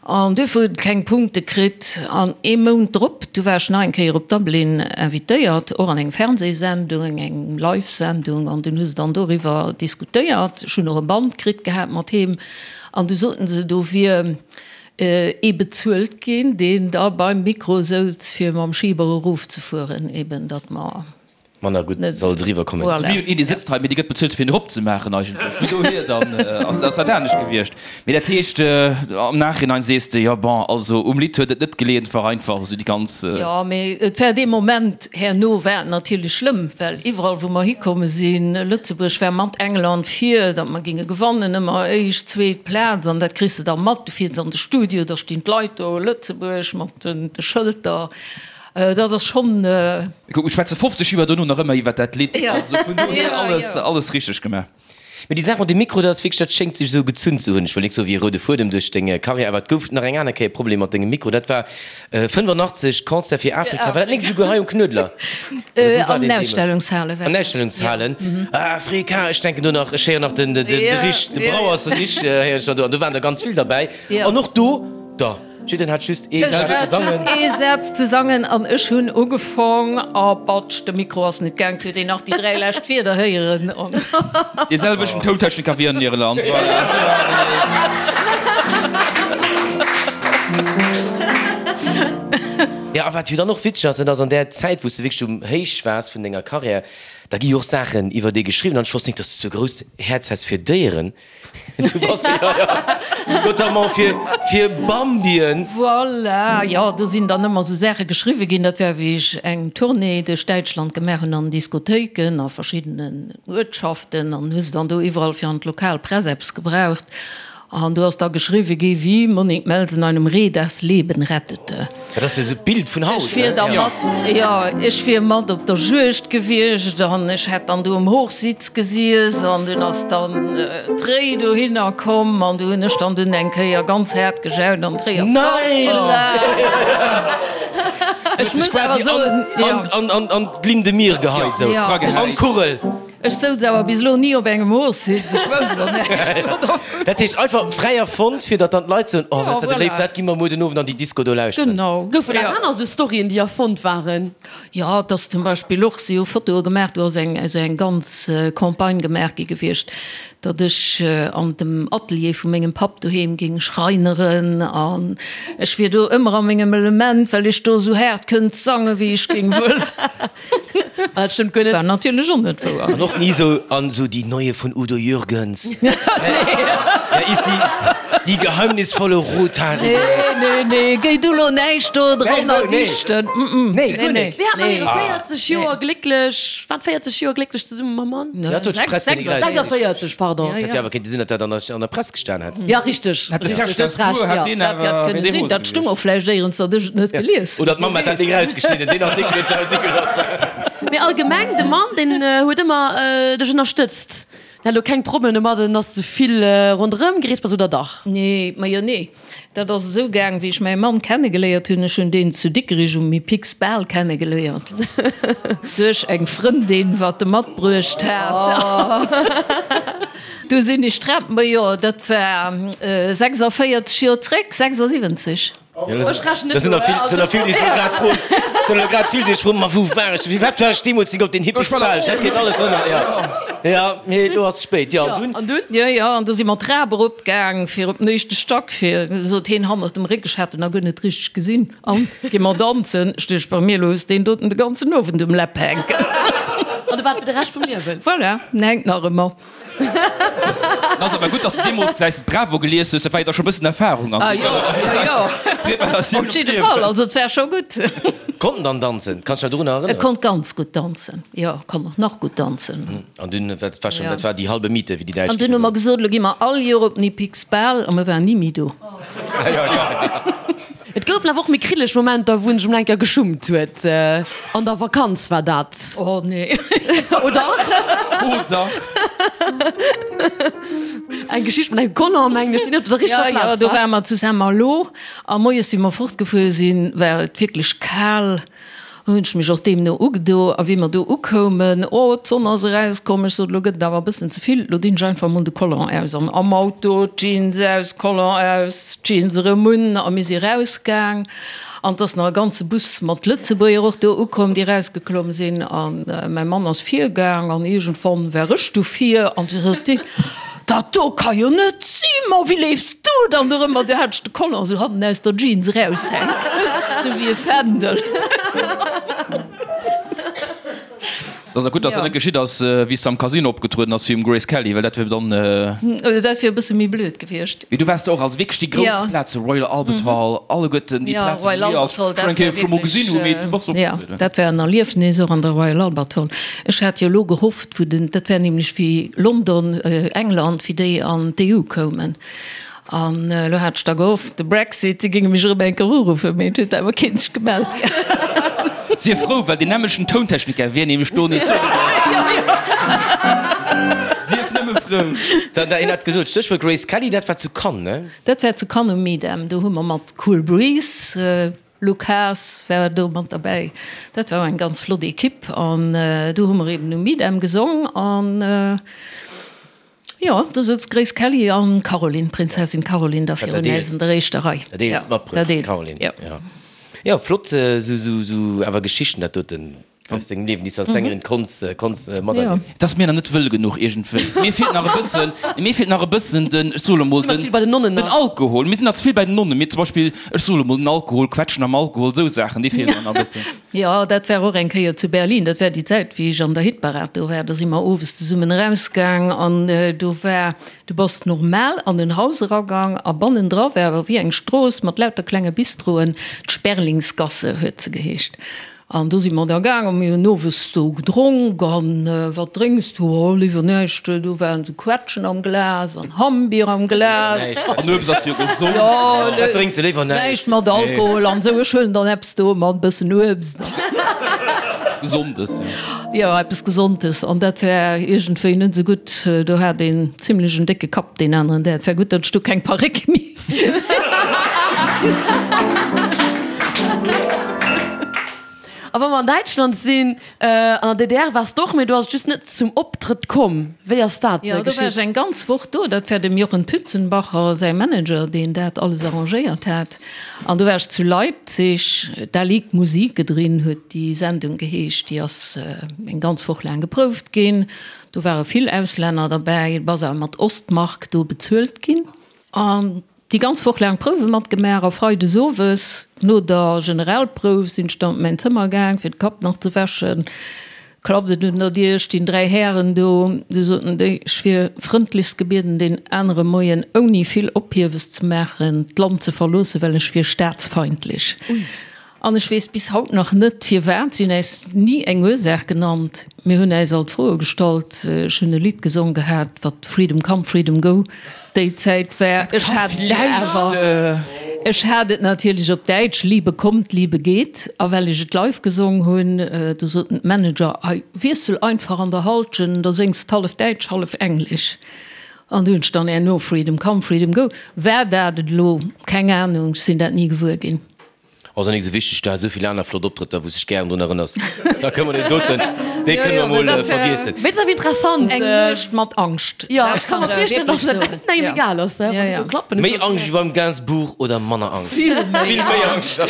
S3: an duerfir huet et keng Punkte kritt. An ee Mount drop, du war ech nach eng Kéier op Dublin invitéiert, och an eng Fernsehsendung, eng Live-Sendung, an dunn hu se dann doriwwer diskutéiert. Ech hunn och e Band kritt gehat mat heem an du soten se, do wier ee bezuelt ginn, deen da beim Mikro souz, fir mam Schiber erofzefueren, eben datt mer.
S2: Manner gutt soll et eriwwer kommen.
S5: Voilà. Mir hunn een, dee sëtzt hei, mee dee gëtt bezuelt fir en eropzemaachen eigentlech. Vun dohier dann ass dat anescht gewiescht. Mee dat heescht, am Nachhinein sees de, jo bon, also um Lidd huet et net geleeën, et war einfach esou déi ganz.
S3: Jo, mee et war dee Moment herno war et natierlech schlëmm, well iwwerall wou mer hikomme sinn, Lëtzebuerg war mat England vir, datt mer géinge gewannen, ëmmer éischt, zweet Plaz an dat kriss de da mat. Du fiers an de Studio, da stinn d'Leit do, Lëtzebuerg mat de Schëlter. Dat ass schonn.
S5: Kuck, mir schwätze 50 Joer dono nach ëmmer iwwer dat Lidd. Also vun dohier alles, alles richteg gemaach.
S2: Mee déi Saach mat dem Mikro, dat ass wierklech, dat schéngt sech esou gezunn ze hunn. Ech wëll nik soe wéi e roude Fuedem duerch deng Karriär, awer et gouf nach eng aner Kéier e Problem mat dengem Mikro. Dat war 85, Concert fir Afrika. War dat nik esouguer hei um Knuedler? Oder wou war
S3: An
S2: deen
S3: den
S2: deemools?
S3: Ausstellungshale war
S2: An den
S3: dat.
S2: Ausstellungshalen. Afrika, ech denken do nach, ech héieren nach den, de, de Rich, de Brauers Rich héieren ech nach do. An do waren der ganz vill derbäi. An och do, da. Jiddereen hat just ee
S3: Ech
S2: Saz ze
S3: hat
S2: sangen.
S3: just ee Saz ze sangen an ech hunn ugefong a batsch, de Mikro ass net gaang, et huet een nach déi 3 lescht Wierder héieren an.
S5: Dee selwechten Tountechniker wéi an Irland, voilà.
S2: Jo, a wat jo dann och witzeg ass, dat ass an där Zäit, wou s de wierklech um Héich waars vun denger Karriär, da gi jo och Saachen iwwer dee geschriwwen an ech wosst nik, dass du sou e grousst Häerz häss fir Déieren. Du bass, ja, ja, notamment fir, fir Bambien.
S3: Voilà, jo, do sinn dann ëmmer esou Saache geschriwwe ginn. Dat war, wéi ech eng Tournée duerch Däitschland gemaach hunn an Diskothéiken a verschiddenen Uertschaften an hu se dann do iwwerall fir an d'lokal Press eppes gebraucht. An do ass da geschriwwe gi wéi Monique Melsen einem Reh das Leben rettete.
S2: Dat ass jo esou d'Bild vun haut,
S3: Ech wier da mat, jo, ech wier mat op der Juegd gewiescht an ech hätt dann do um Hochsitz gesiess an dunn ass dann d'Réi dohinner komm an du hunn ech dann dunn eng Kéier ganz haart gejaut an d'Réi ass fortgelaf.
S2: Ech muss awer soen, jo. An d'Linn de mire geheit, esou an d'Kugel.
S3: Ech souz awer bis elo ni op engem Hochsitz, ech wousst och näischt dovun.
S2: Dat heescht einfach fräi erfonnt, fir datt dann d'Leit soen, oh, wat ass dat e Léift, dat gi mer muer den Owend an déi Disco do lauschteren.
S3: Genau.
S4: Goufen nach aner esou Storyen, déi erfonnt waren?
S3: Jo, et ass zum Beispill och, si hu Fotoe gemaach, do ass eng esou eng ganz Campagne gemaach gi gewiescht, datt ech an dem Atelier vu mengem Papp doheem géing schreineren an ech wier do ëmmer a mengem Element, well ech do esou haart kënnt sange wéi ech géing wëllen.
S4: Dat stëmmt guer net.
S3: War natierlech och net wouer.
S2: An och ni sou, an sou die neue von Udo Jürgens. Wer ist die, die geheimnisvolle Rothaarige?
S3: Nee, nee, nee, géi du lo näischt do dran erdichten.
S2: Nee, guer net.
S4: Wéi hat mer hire 40 Joer glécklech, wat 40 Joer glécklech zesumme mam Mann?
S2: Dat huet d'Press jo nik eraus.
S4: 46, pardon.
S2: Dat hätt jo awer kéinte sinn, datt dat an der Press gestan hätt.
S4: Ja, richteg.
S5: Hätt de Serge Gainsbourg, hätt deen
S3: Dat hätt
S5: awer,
S3: kënne
S5: wär dee
S3: sinn.
S5: rose
S3: Dat stung
S5: gewiescht.
S3: och vläicht éierens, datt ech et net gelies hunn.
S2: Oder d'Mamm hätt dat Ding erausgeschnidden, deen Artikel huet se hei si gelooss.
S4: Mee allgemeng, de Mann, deen huet ëmmer dech ënnerstëtzt. Deen hat elo keng Problemer domadden, dass de vill ronderëm gereest bass, oder dach?
S3: Nee, majo nee. Dat ass esou gaang, wéi ech mäi Mann kennegeléiert hunn. Ech hunn deen zu Dikrich um Mipix Bal kennegeléiert. Duerch eng Frëndin, wat e matbruecht hat. Du sinn ech d'Trap, majo, dat war 46 Joer zréck, 76.
S4: Ech rechnen net
S2: Da sinn
S4: no,
S2: der vill, sinn der vill, déi sech elo grad froen, sinn elo grad vill, déi sech froen, ma wou war ech, firwat war ech deemools nik op den Hippies Bal? Ech hätt kéint alles ënner, jo, jo, mee elo ass et spéit, jo, an dunn?
S4: An dunn?
S3: Jo, jo, an du si mer d'Trap erop gaang fir op den éischte Stack, fir, sot heen hannert dem Réck, ech hat en nach guer net richteg gesinn, an gi mer danzen. Ech duecht bei mir, elo hues deen doten de ganzen Owend um Läpp hänken.
S4: An du waart fir de Rescht vum Liewen?
S3: Voilà, en hänkt nach ëmmer.
S5: Ass awer gutt, dass de deemools gesäis de d'Bravo gelies hues, dat war jo da scho bëssen Erfahrung an
S3: Ah jo, jo, jo.
S5: Preparatioun
S3: Op jidde Fall, also et war scho gutt.
S2: Konnt en dann danzen? Kanns dech nach dorunner
S3: E
S2: erënneren?
S3: konnt ganz gutt danzen, jo, konnt och nach gutt danzen.
S2: An dunn, dat war schonn,
S3: Ja.
S2: dat war déi halbe Miete, wéi déi Däitsch
S3: An dunn hu mer gesot, elo gi mer all Joer op den Hippiques Bal a mer waren ni méi do.
S4: Et goufen awer och méi kriddeleg Momenter, wou en sech emol eng Kéier geschummt huet. An der Vakanz war dat.
S3: Oh nee.
S4: Oder?
S5: Oder?
S4: Eng Geschicht mat engem Collant, mengen ech, déi net op der richteger
S3: Ja,
S4: Plaz
S3: ja, do
S4: war.
S3: ware mer zu Saint-Malo a moies, wéi mer fortgefuer sinn, war et wierklech kal. Hunn ech mech och deemno ugedo. A wéi mer do ukoumen, oh, d'Sonn ass erauskomm, ech sot, elo gëtt et awer e bëssen ze vill, elo dinn ech einfach emol de Collant aus. An am Auto, d'Jeans aus, Collant aus, d'Jeans erëm un a mir si rausgaang. An 't ass nach e ganze Bus mat Lëtzebuerger och do ukomm, déi erausgeklomm sinn. A mäi Mann ass virgaang an iergendwann war ech du vir an du sot deen, Dat do ka jo net sinn, ma wéi leefs du dann dorëmmer? Du hat ech de Collant sou hannen aus der Jeans eraushänken, sou wéi e Fändel.
S5: Dat ass gutt, dass dat net geschitt ass, wéi s de am Casino opgetrueden ass, wéi um Grace Kelly, well dat wier dann.
S3: Dat wier e bësse méi blöd gewiescht.
S5: Mee du waars do och, also wierklech déi grouss Plaze, Royal Albert Hall, alleguerten déi Plazen, wou mir als schonn eng Kéier scho mol gesinn hunn, mee du bass opgetrueden.
S3: Jo, dat war en Erliefnis och an der Royal Albert Hall. Ech hat jo elo gehofft, wou den, dat war nämlech wéi London, England, wéi déi an d'EU koumen. An elo hat ech da gehofft, de Brexit, déi géinge mech erëm eng Kéier uruffen, mee et huet awer keen sech gemellt gehat.
S5: Sief frou, well deen nämlechten Tountechniker wier nämlech do nees do gewiescht. Sief nëmme. Nëmme frou.
S2: Sou, een hat gesot, Stéchwuert Grace Kelly, dat war zu Cannes, ne?
S3: Dat war zu Cannes um Midem. Do hu mer mat Cool Breeze, Luc Haas war do mat derbäi. Dat war och eng ganz flott Ekipp an do hu mer eben um Midem gesong an jo, do souz d'Grace Kelly an d'Caroline, d'Prinzessin Caroline da virun äis an der éischter Rei.
S2: Dat eelst matbruecht, d'Caroline. Jo, jo, flott esou awer Geschichten dat doten. Aus dengem Liewen, déi s du als Sängerin konns, konns materliewen.
S5: Et ass mir nach net wëll genuch iergendwéi. Mir feelt nach e bëssen, mir feelt nach e bëssen den, ech soe lo mol, den, den Alkohol. Mir sinn nach ze vill bei den Nonnen. Mir zum Beispill, ech soe lo mol, den Alkohol, Quetschen am Alkohol, esou Saachen, déi feelen mer nach e bëssen.
S3: Jo, dat war och eng Kéier zu Berlin. Dat war déi Zäit, wéi ech an der Hitparad do war. Do si mer owes zesummen erausgaang an do war, du bass normal an en Haus eragang a bannendra war awer wéi eng Strooss mat lauter klenge Bistroen, d'Sperlingsgasse huet se geheescht. An do si mer da gaang a mir hunn owes do gedronk. An wat drénks du? Oh, léiwer näischt. Do waren esou Quetschen am Glas an Hammbier am Glas.
S5: An Uebst ass jo gesond.
S3: Jo,
S2: Wat drénks du? Léiwer näischt.
S3: Näischt mat Alkohol an esou. Ech huelen dann eppes do mat e bëssen Uebst.
S5: Eppes Gesondes, jo.
S3: Jo, eppes Gesondes. An dat war iergendwéi net esou gutt. Do hat een zimlech en décke Kapp deen aneren Dag. Et war gutt, datt ech do keng Paréck méi.
S4: A wa mer an Däitschland sinn, an der DDR waars de och, mee do ass et just net zum Optrëtt komm. Wéi ass dat
S3: geschitt? Jo, do war ech eng ganz Woch do. Dat war dem Jochen Pützenbacher säi Manager, deen dat alles arrangéiert hat. An do war ech zu Leipzig. Da liegt Musik drin huet déi Sendung geheescht. Déi ass eng ganz Woch laang geprouft ginn. Do ware vill Auslänner derbäi. Et ass awer mat Ostmark do bezuelt ginn. An déi ganz Woch laang Prouwe matgemaach a freides owes no der Generalprouf sinn ech dann op mäin Zëmmer gaang fir de Kapp nach ze wäschen. Klappt et un der Dier, stinn 3 Hären do. Du soten déi, ech wier frëndlechst gebieden deen anere Moien ouni vill Ophiewes ze maachen d'Land ze verloossen, well ech wier staatsfeindlech. An ech weess bis haut nach net firwat. Si hunn äis ni eng Ursaach genannt. Mir hunn äis alt Froe gestallt. Ech hunn e Lidd gesong gehat, wat Freedom come, freedom go déi Zäit war. Ech hat et awer, ech hat et natierlech op Däitsch, Liebe kommt, Liebe geht. A well ech et live gesong hunn, du soten d'Manager, Hei, wiessel einfach an der Halschent, da séngs d'hallef Däitsch, hallef Englesch. An du hunn ech dann herno Freedom come, freedom go. War dat et elo? Keng Anung, ech sinn dat ni gewuer ginn.
S2: Ass och nik esou wichteg, du has esou vill aner flott Optrëtter wous dech gären drun erënners, da kënne mer deen doten, dee kënne mer mol vergiessen.
S4: Mee et ass awer interessant.
S3: Eng Nuecht mat Angscht.
S4: Jo, ech ka mer virstellen, dass et engem egal ass, wann déi do klappen.
S2: Méi Angscht wéi beim Gainsbourg oder manner Angscht?
S3: Vill méi.
S2: Vill méi Angscht.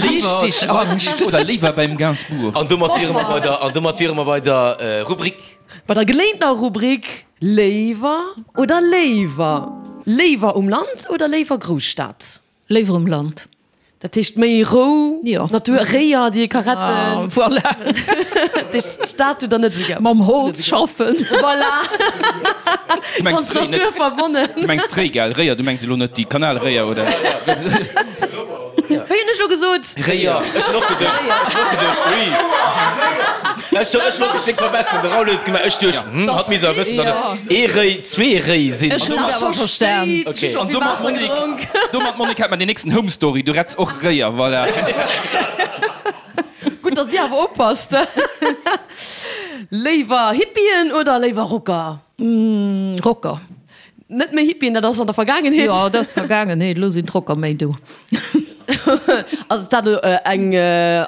S3: Richteg Angscht.
S5: Oder léiwer beim Gainsbourg.
S2: An domat wiere mer bei der, an domat wiere mer bei der Rubrik.
S4: Bei der geléintener Rubrik Léiwer oder léiwer? Léiwer um Land oder léiwer Grousstad?
S3: Léiwer um Land.
S4: Dat heescht méi Rou,
S3: Jo.
S4: Natur, Réier déi ee ka retten.
S3: Voilà.
S4: Dat heescht d'Stad hutt der net esou gär.
S3: Mam Holz schaffen.
S4: Voilà.
S5: Du mengs
S4: Ganz
S5: d'Réi net.
S4: naturverbonnen.
S5: Du mengs d'Réi, gell? Réier, du mengs elo net déi Kanalréier, oder?
S4: Wéi hunn ech elo gesot?
S2: Réier. Ech hunn och geduecht, ech hunn och geduecht, ui. Ech hu, ech wollt mech déck verbesseren, de Raoul huet et gemaach, ech duecht, hm, hatt misst awer wëssen, datt et ee Réi, zwee Réi sinn.
S3: Ech hunn et awer verstan.
S2: Okay.
S5: An domat, Monique, domat, Monique, hätt mer den nächsten Home Story, du retts och Réier, voilà.
S4: Gutt, datt Dir awer oppasst. Léiwer Hippien oder léiwer Rocker?
S3: Rocker.
S4: Net méi Hippien, dat ass an der Vergaangenheet.
S3: Jo, dat ass d'Vergaangenheet, elo sinn d'Rocker méi do.
S4: Ass dat elo eng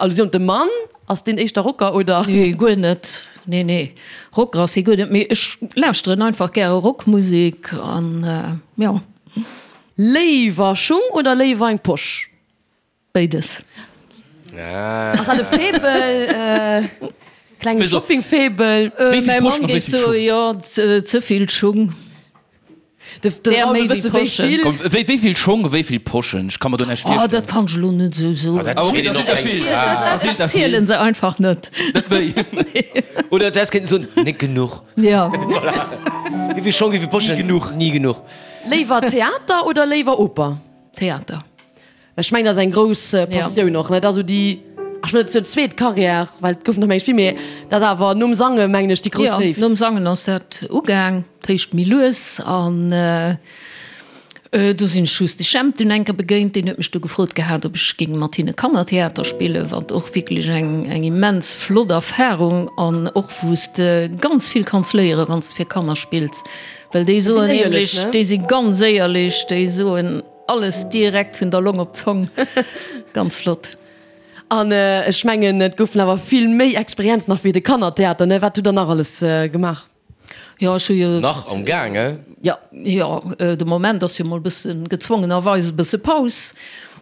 S4: Allusioun op de Mann? Ass deen éischter Rocker oder?
S3: Nee, guer net. Nee, nee, Rocker ass hie guer net. Mee ech lauschteren einfach gäre Rockmusek an jo.
S4: Léiwer Schung oder léiwer eng Posch?
S3: Béides.
S4: Ass dat e Faible? Klenge Shopping-Faible?
S3: Mäi Mann géif soen, jo, ze vill Schung.
S4: Där méi wéi Poschen.
S5: Wéi vill Schong, wéi vill Poschen? Ech ka mer do näischt
S3: virstellen. Oh, dat kann ech elo net esou soen. Ech zielen se einfach net.
S5: Net méi?
S2: Oder du häss kéinten soen, net genuch.
S3: Jo.
S2: Voilà. Wéi vill Schong, wéi vill Poschen?
S5: Ni genuch.
S2: Ni genuch.
S4: Léiwer Theater oder léiwer Oper?
S3: Theater.
S4: Ech mengen dat ass eng grouss Passioun och, ne? Dat ass esou déi, ech wëll net soen zweet Carrière, well et goufen der mengen ech vill, mee dat ass awer nom Sange mengen ech déi grouss Léift.
S3: Jo, nom Sangen ass dat ugaang, dat heescht méi lues an. Do sinn ech just de Jemp dunn eng Kéier begéint, deen huet mech du gefrot gehat, ob ech géing mat hinne Kannertheater spillen, wat och wierklech eng eng immens flott Erfarung an och wou s de ganz vill kanns léieren, wann s de fir Kanner spills, well déi soen nämlech, déi si ganz éierlech, déi soen alles direkt vun der Long op d'Zong, ganz flott.
S4: An ech mengen, et goufen awer vill méi Experienzen nach wéi de Kannertheater, ne? Wat hutt Der nach alles gemaach?
S3: Jo, ech hu jo.
S2: Nach am Gaang, eh?
S3: Jo, jo, de Moment ass jo mol e bësse gezwongenerweis e bësse Paus,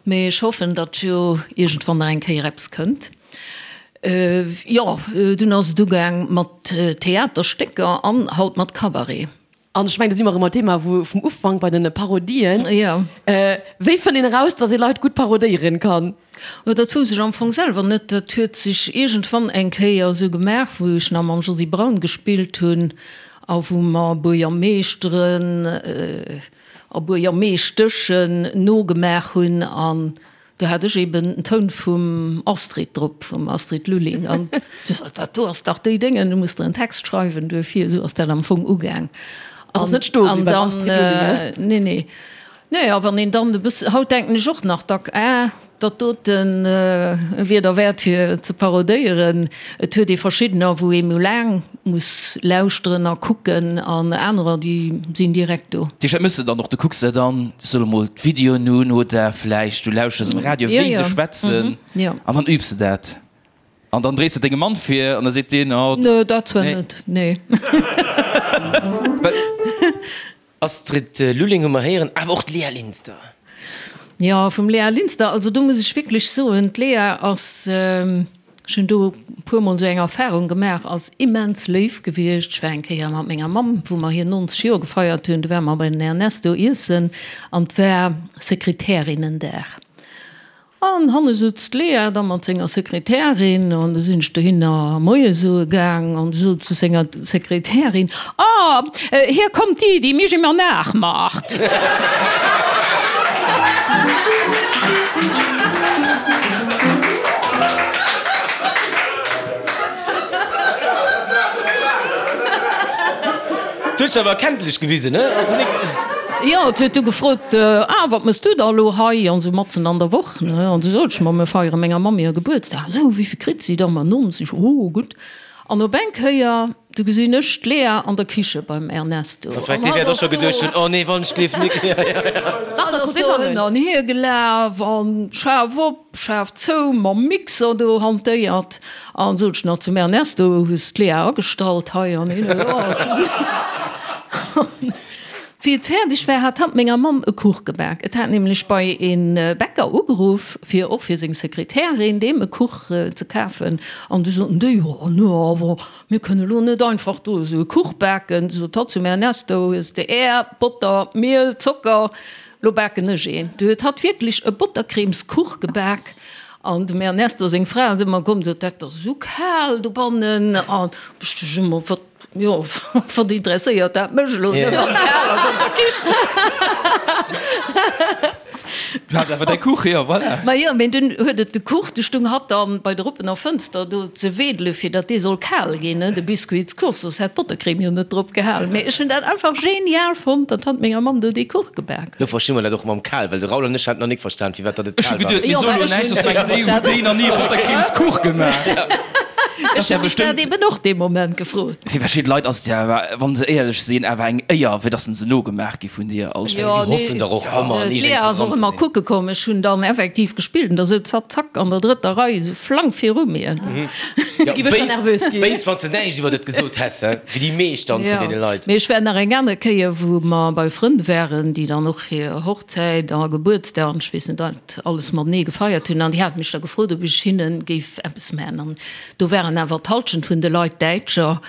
S3: mee ech hoffen, datt jo iergendwann nach eng Kéier eppes kënnt. Jo, dunn ass et ugaang mat Theaterstécker an haut mat Cabaret.
S4: An ech mengen, do si mer erëm beim Thema wou vum Ufank, bei den Parodien.
S3: Jo.
S4: Wéi fënnt een eraus, datt ee Leit gutt parodéieren kann?
S3: Jo, dat wousst ech am Fong selwer net. Dat huet sech iergendwann eng Kéier esou gemaach, wou ech nach mam Josy Braun gespillt hunn a wou mer Buergermeeschteren a Buergermeeschteschen nogemaach hunn. An do hat ech eben den Toun vum Astrid drop, vum Astrid Lulling. An du sot, dat do ass dach déi Déngen, du muss der en Text schreiwen duerfir. Esou ass dat am Fong ugaang.
S4: Ass net stoe bliwwen beim Astrid Lulling,
S3: ne? Nee, nee. Nee, a wann een dann e bësse, haut denken ech och nach dack, ah, dat doten wier derwäert fir ze parodéieren. Et huet ee verschiddener, wou ee méi laang muss lauschteren a kucken, an anerer, déi sinn direkt do.
S5: Déi dat mëss de dann och, du kucks der dann, ech soe mol, d'Videoen un oder vläicht du lauschters um Radio, wéi se schwätzen, an dann übs de dat. An dann dréis de dengem Mann vir an da seet deen, oh.
S3: Nee, dat zwar net, nee.
S2: Astrid Lulling hu mer héieren, awer och d'Lea Linster.
S3: Jo, vum Lea Linster, also do muss ech wierklech soen, d'Lea ass, ech hunn do e puermol esou eng Erfahrung gemaach, ass immens léif gewiescht. Ech war eng Kéier mat menger Mamm, wou mer hir 90 Joer gefeiert hunn, do ware mer bei den Ernesto iessen an 't war Sekretärinnendag. An hanne sutz d'Lea da mat senger Sekretärin, an du sinn ech dohinner Moie soe gaang, an du sot zu senger Sekretärin, Ah, hier kommt die, die mich immer nachmacht.
S2: D'huet sech awer erkenntlech gewisen, ne? Also nik.
S3: Jo, et huet du gefrot, Ah, wat mëss du da elo hei? An esou matzen an der Woch, ne? An du sot ech, Ma mir feiere menger Mamm hir Gebuertsdag. Esou, wéivill kritt si da? Ma 90. Oh, gutt. An op eng Kéier, du gesinn ech d'Lea an der Kiche beim Ernesto.
S2: An hatt ass do. Oh nee, wann ech gleef nik.
S3: Hatt ass do hin an hier gelaf an schaarf op. Schaarf zou, mam Mixer do hantéiert an sot ech nach zum Ernesto, hues d'Lea agestallt hei an hin an Wéi et fäerdeg war, hat hatt menger Mamm e Kuch gebak. Et hat nämlech bei e Bäcker ugeruff, fir och fir seng Sekretärin deem e Kuch ze kafen. An du soten déi, Jo, no awer mir kënne lo net einfach do esou e Kuch baken. Du sot hatt zum Ernesto, Hues de Är, Botter, Miel, Zocker? Lo baken ech een. Du huet hatt wierklech e Bottercremeskuch gebak an dem Ernesto seng Fra ass ëmmer komm, sot, dat ass esou kal dobannen an ech duecht ëmmer, wat, jo, wat interesséiert dat mech elo, ne, wann et kal ass an der Kichen.
S5: Du has awer däi Kuch, jo, voilà.
S3: Ma jo, mee dunn huet et de Kuch, du stung hatt dann bei der oppener Fënster do ze wedele fir datt dee soll kal ginn, ne, de Biscuitskuch, soss hätt d'Bottercreme jo net drop gehalen. Mee ech hunn dat einfach genial fonnt, datt hatt menger Mamm do dee Kuch gebak
S2: Lo versti mer dat och mam kal, well de Raoul an ech haten nach nik verstan, firwat datt et
S5: Ech hu
S2: kal war.
S5: geduet, mir
S3: Jo,
S5: soe
S3: mä
S5: lo
S3: ech
S5: näischt,
S3: hunn
S5: soss mengen déi, hutt déi nach ni e Bottercremeskuch gemaach?
S3: Ech hunn mech dat eben och dee Moment gefrot.
S5: Fir verschidde Leit ass et jo awer, wa se éierlech sinn, awer eng Éier, fir datt se nogemaach gi vun dir. Also.
S2: Si hoffen dach och ëmmer an
S3: D'Lea ass och
S2: iergendengem
S3: ëmmer
S2: Programm ze sinn.
S3: kucke komm. Ech hunn dann effektiv gespillt an da souz hatt zack an der drëtter Rei esou flank viru mir.
S2: Ja, béis, béis, wann s de näischt iwwer et gesot häss, he, wéi déi meescht dann vun deene Leit.
S3: Mee ech war nach eng aner Kéier, wou mer bei Frënn waren, déi dann och hir Hochzäit a Gebuertsdag an ech weess net wat alles matenee gefeiert hunn an déi hate mech da gefrot, ob ech hinne géif eppes maachen. An do waren awer d'Halschent vun de Leit Däitscher.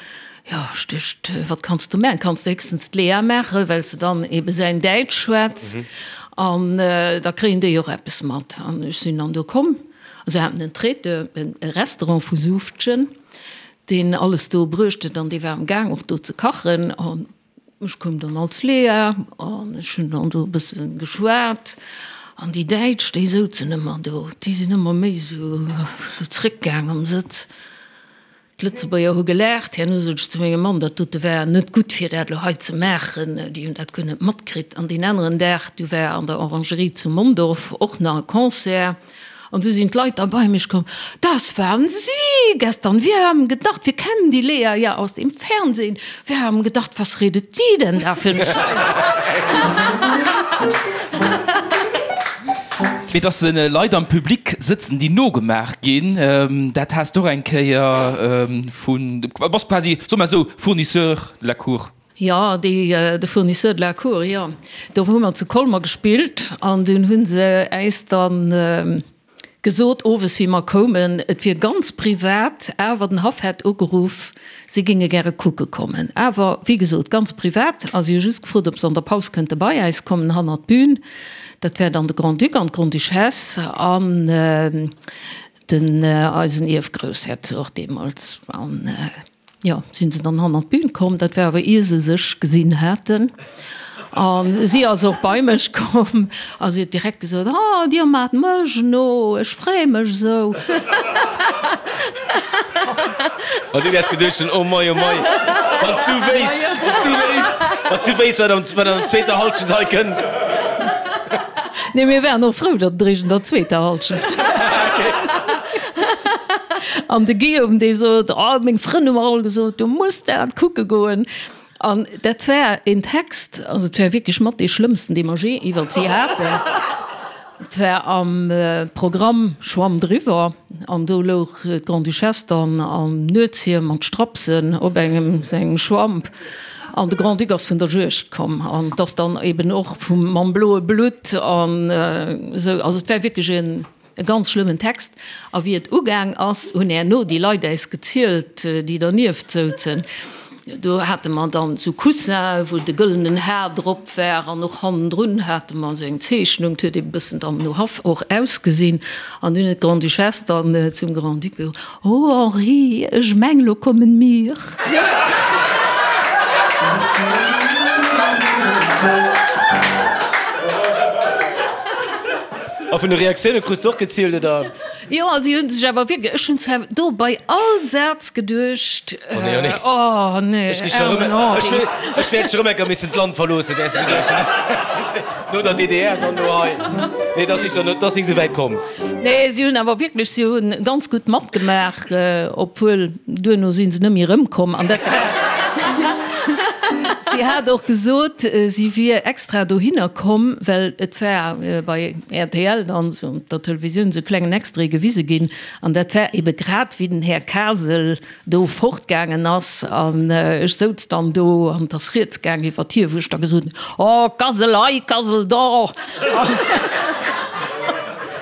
S3: Jo, ech duecht, wat kanns du maachen? Kanns de héchstens d'Lea maachen, well se dann ebe säin Däitsch schwätzt an da kréien déi och eppes mat. An ech sinn dann do komm a se haten en Traiteur, e Restaurant vu Suuftgen, deen alles do bruecht huet an dee war am Gaang och do ze kachen. An ech koum dann als Lea an ech hunn dann do e bësse geschwat an déi Däitsch, déi souzen ëmmer do, déi sinn ëmmer méi esou zréckgaang am Sëtz. D'Lëtzebuerger hu gelaacht. Herno sot ech zu mengem Mann, dat dote war net gutt fir dat elo hei ze maachen, déi hunn dat guer net matkritt. An deen aneren Dag, du war an der Orangerie zu Mondorf och nach e Concert an du sinn d'Leit da bei mech komm, Das waren Sie gestern, wir haben gedacht, wir kennen die Lea ja aus dem Fernsehen, wir haben gedacht, was redet die denn da für 'ne Scheiss.
S5: Mee dass Leit am Public sëtzen, déi nogemaach ginn, dat has de och eng Kéier vun, du bass quasi, soe mer esou, Fournisseur de la cour.
S3: Jo, déi, de Fournisseur de la cour, jo. Do hu mer zu Colmer gespillt an dunn hu se äis dann gesot, owes wéi mer koumen, et wier ganz privat, awer den Haff hätt ugeruff, si géinge gäre kucke kommen. Awer, wéi gesot, ganz privat a si hu just gefrot, ob se an der Paus kënnte bei äis kommen, hannert d'Bün. Dat wär dann de Grand-Duc an d'Grande-Duchesse an den eisen Ierfgroussherzog deemools. An Jo, sinn se dann hannert d'Bün komm. Dat war awer ier se sech gesinn haten. A si ass och bei mech komm a si huet direkt gesot, Oh, Dir maacht mech no, ech freeë mech esou.
S2: An du wäers geduecht hunn, Oh mei, oh mei, wann s du wéisst, wann s du wéisst, wann s du wéisst, wat an der zweeter Hallschent hei kënnt.
S3: Nee, mir waren och frou, datt et eréischt an der zweeter Hallschent war. An de Guillaume, dee sot, Oh, meng Frënn hu mer all gesot, du muss dat kucke goen. An dat war een Text, also et war wierklech mat dee schlëmmsten, dee mer jee iwwert si haten. Et war am Programm Schwamm driwwer an do louch d'Grande-Duchesse dann am Nuetshiem mat Strapsen op engem sengem Schwamp an de Grand-Duc ass vun der Juegd komm an et ass dann eben och vum mam bloe Blutt an esou. Also et war wierklech en. E ganz schlëmmen Text. A wéi et ugaang ass, hunn herno déi Leit äis gezielt, déi dernieft souzen. Do hate mer dann esou Coussinen, wou de gëllenen Har drop war an och hannendrun hate mer esou eng Zeechnung. 't huet ee bëssen dann no Haff och ausgesinn. An dunn huet d'Grande-Duchesse dann zum Grand-Duc gesot, Oh Henri, ech meng, lo kommen mir.
S2: A vun de Reaktioune krus de och gezielt, oder?
S3: Jo, si hunn sech awer wierklech, ech hunn zwar do bei all Saz geduecht,
S2: Oh nee, oh nee.
S3: Oh nee,
S2: Ech kriss scho rëm,
S3: aarmen
S2: ech
S3: Henri.
S2: ech wäert scho rëm eng Kéier missen d'Land verloossen, wäers de geduecht hunn. No der DDR, dann elo hei. Nee, et ass nik, et ass nik esou wäit komm.
S3: Nee, si hunn awer wierklech, si hunn ganz gutt matgemaach. Obwuel, duerno si se net méi erëmkomm. An dat Si hat och gesot, si wier extra dohinner komm, well et war bei rtl dann esou op der Televisioun esou e klengen Extrait gewise ginn. An dat war ebe grad, wéi den Här Kasel do fortgaangen ass. An ech souz dann do an et ass rieds gaang iwwert hie, wou ech da gesot hunn, Oh, Kasel hei, Kasel do!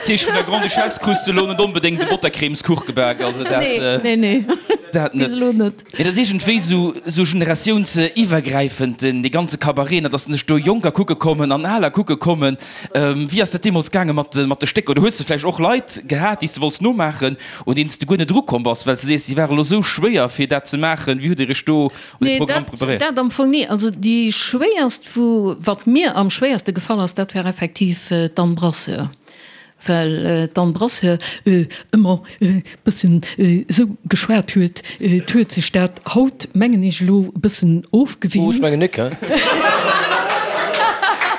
S5: Tisch vun der Grande-Duchesse krus de lo net onbedéngt e Bottercremeskuch gebak, also dat
S3: Nee, nee, nee.
S5: dat
S3: Bis
S5: net.
S3: elo net.
S5: Mee dat ass iergendwéi sou sou generatiounsiwwergräifend, den dee ganze Cabaret, ne, dass sech do Jonker kucke kommen an Aler kucke kommen. Wéi ass dat deemools gaange mat de mat de Stécker? Oder hues de vläicht och Leit gehat, déi s de wollts nomaachen, un deenen s de guer net erukomm bass, well s de sees, déi ware lo sou schwéier fir dat ze maachen? Wéi hutt Dir iech do un de
S3: Nee,
S5: Programm
S3: dat,
S5: preparéiert?
S3: dat am Fong ni. Also déi schwéierst, wou, wat mir am schwéierste gefall ass, dat war effektiv d'Anne Brasseur. Well d'Anne Brasseur ëmmer e bëssen esou geschwat huet, et huet sech dat haut, mengen ech, elo e bëssen
S2: Oh, ech
S3: ofgewinnt.
S2: mengen nik, he?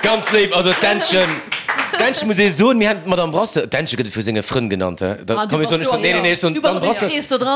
S2: Ganz léif, also d'Ännchen, d'Ännchen muss ee soen, mir haten d'Madame Brasseur, d'Ännche gëtt et vu senge Frënn genannt, he? Da komm ech soen, ech soen, nee, nee, nee, ech soen, d'Anne Brasseur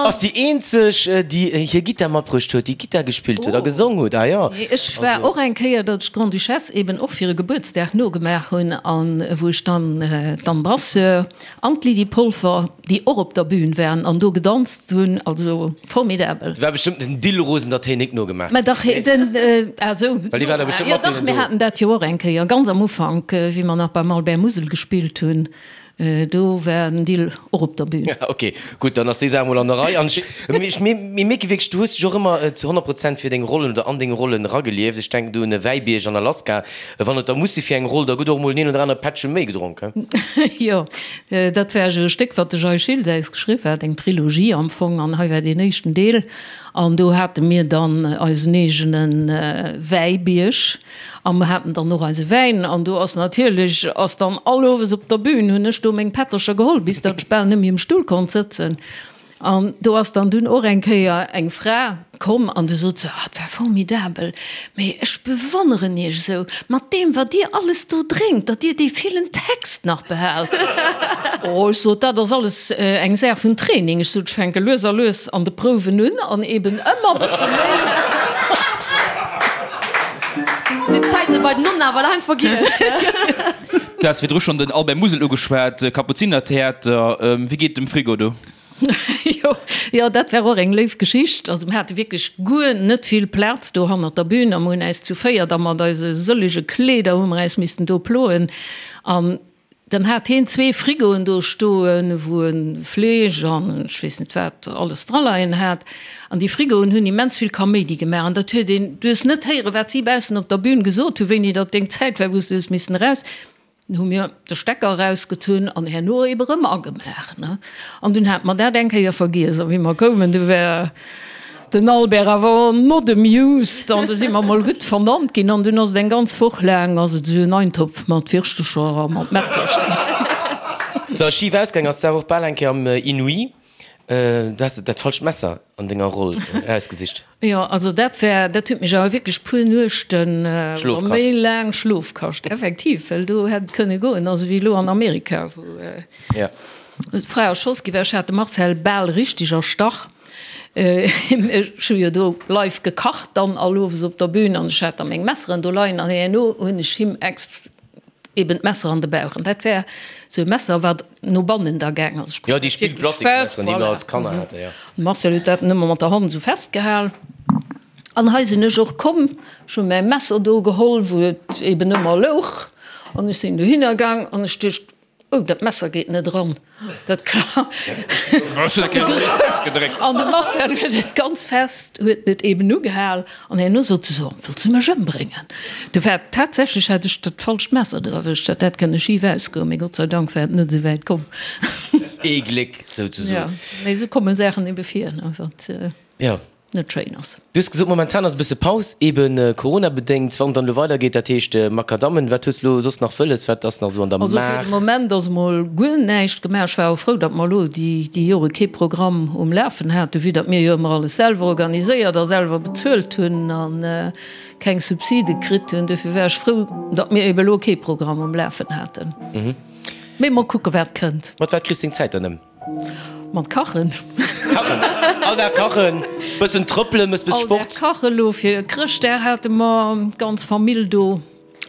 S2: ass déi eenzeg, déi hir Gittar matbruecht huet, déi Gittar gespillt huet a gesong huet, ah jo.
S3: Nee, ech war och eng Kéier, datt ech d'Grande-Duchesse eben och fir e Gebuertsdag nogemaach hunn an wou ech dann d'Anne Brasseur an d'Lydie Polfer, déi och op der Bühn waren an do gedanzt hunn, also formidabel.
S2: Et war bestëmmt den Dill Rosen, datt hien nik nogemaach
S3: Mä
S2: huet,
S3: dach,
S2: nee?
S3: den, ah sou,
S2: Well déi war da bestëmmt
S3: jo
S2: mat
S3: dach,
S2: deenen
S3: mir
S2: do.
S3: haten dat jo och eng Kéier, ganz am Ufank, wéi mer nach beim Albert Musel gespillt hunn, Do war den Dill och op der Bühn.
S2: Ok, gutt, dann ass déi Saach mol an der Rei. An ech, mir mierke wierklech, du hues dech och ëmmer zu 100 Prozent fir deng Rollen oder an deng Rollen eragelieft. Ech denken do un e Wäibierg an Alaska. Wann et da muss si fir eng Roll, da gëtt och mol den een oder anere Pättche méi gedronk, he?
S3: Jo, dat war esou e Stéck, wat de Jay Schiltz äis geschriww hat, eng Trilogie am Fong, an hei war deen éischten Deel. An do hate mir dann eisen eegene Wäibierg. A mer haten dann och eise Wäin an do ass natierlech, ass dann all Owes op der Bühn hunn ech do meng Pättercher geholl, bis datt ech bal net méi um Stull konnt sëtzen. An do ass dann dunn och eng Kéier eng Fra komm an du sot se, Ah, et war formidabel, mee ech bewonneren Iech esou, mat deem wat Dir alles do drénkt, datt Dir dee villen Text nach behaalt. Oh, ech sot, dat ass alles eng Saach vun Training. Ech sot, ech fänke lues a lues an de Prouwen un an eben ëmmer e bësse méi.
S4: Sinn d'Zäite bei den Nonnen awer laang vergiess.
S5: Du has virdru schonn den Albert Musel ugeschwat, Kapuzinertheater. Wéi geet et dem Frigo do?
S3: Jo, jo, dat war och eng léif Geschicht. Also mir hate wierklech guer net vill Plaz do hannert der Bühn a mir hunn äis zu véiert a mat eise sëllege Kleeder hu mer äis missten do ploen. An dann hat heen zwee Frigoen do stoen, wou e Fleesch an ech weess net wat alles draleien hat. An déi Frigoen hunn immens vill Kaméidi gemaach an dat huet een, du hues net héieren, wat si baussen op der Bühn gesot hunn, wéini datt deng Zäit war, wou s du hues missen eraus. Dunn hu mir de Stecker erausgezunn an herno ebe rëm agemaach, ne. An dunn hate mer dat eng Kéier vergiess a wéi mer koumen, du war den Albert awer not amused an du si mer mol gutt vernannt ginn an dunn ass et eng ganz Woch laang ass et esou en Eintopf mat Wirschtecher a mat Mettwurscht
S2: ginn. Sou, schif ausgaang ass d'Saach och bal eng Kéier am Inouï. Du has dat falscht Messer an denger Roll erausgesicht.
S3: Jo, also dat war, dat huet mech awer wierklech puer Nuechten
S2: Schlof
S3: oder méi laang Schlof kascht, effektiv, well do hätt et kënne goen, also wéi elo an Amerika, wou d'Fra erschoss gi war. Ech hat de Marcel bal richteg erstach. Ech hu jo do live gekacht dann all owes op der Bühn an ech hat da meng Messeren do leien an herno hunn ech him ex. Eben d'Messer an de Bauch. An dat war esou e Messer, wat no bannen da gaang ass.
S2: Jo, déi Spillplastiksmesseren, déi mer als Kanner haten, jo.
S3: De Marcel huet dat ëmmer mat der Hand esou festgehal. An hei sinn ech och komm, ech hu mäi Messer do geholl, wou et eben ëmmer louch, an ech sinn dohinner gaang an ech duecht, Oh, dat Messer geet net eran. Dat An de Marcel huet et ganz fest, huet et eben ugehal an herno sot e so, Wëlls du mech ëmbréngen? Du war tatsächlech hat ech dat falscht Messer dra erwëscht, dat hätt kënne schif ausgoen, mee Gott sei Dank war et net esou wäit komm.
S2: Ee Gléck souzesoen.
S3: Jo, mee esou komme Saachen ebe vir, ne, wat.
S2: Jo.
S3: Net schéin ass.
S2: Du hues gesot, momentan ass e bësse Paus, eben Corona-bedéngt. Wann et dann elo weidergeet, dat heescht Makadammen, wat hues de elo soss nach wëlles? Wat ass nach esou an der
S3: Also fir
S2: Maach?
S3: de Moment ass emol guer näischt gemaach. Ech war och frou, datt mer elo déi déi Jore kee Programm um Lafen haten, vue datt mir jo ëmmer alles selwer organiséiert a selwer bezuelt hunn a keng Subside kritt hunn. Dofir war ech frou, datt mir ebe elo kee Programm um Lafen haten. Mee mol kucke wat kënnt.
S2: Mat wat kriss deng Zäit dann ëm?
S3: Mat kachen.
S2: Kachen, all Dag kachen, bëssen trëppelen, mëss bëss Sport.
S3: All Dag kachen. Elo fir Chrëschtdag hate mer d'ganz Famill do,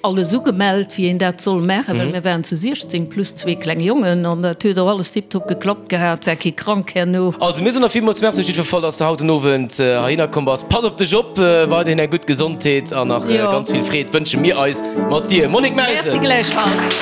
S3: alles ugemellt wéi een dat soll maachen, well mir waren zu 16 plus zwee kleng Jongen an dat huet och alles tiptop geklappt gehat, war kee krank herno.
S2: Also mir soen der villmools Merci op jiddwer Fall, dass de haut den Owend heihinner komm bass. Pass op dech op, weiderhin eng gutt Gesondheet an nach ganz vill Freed wënsche mir eis mat dir. Monique Melsen.
S3: Merci gläichfalls.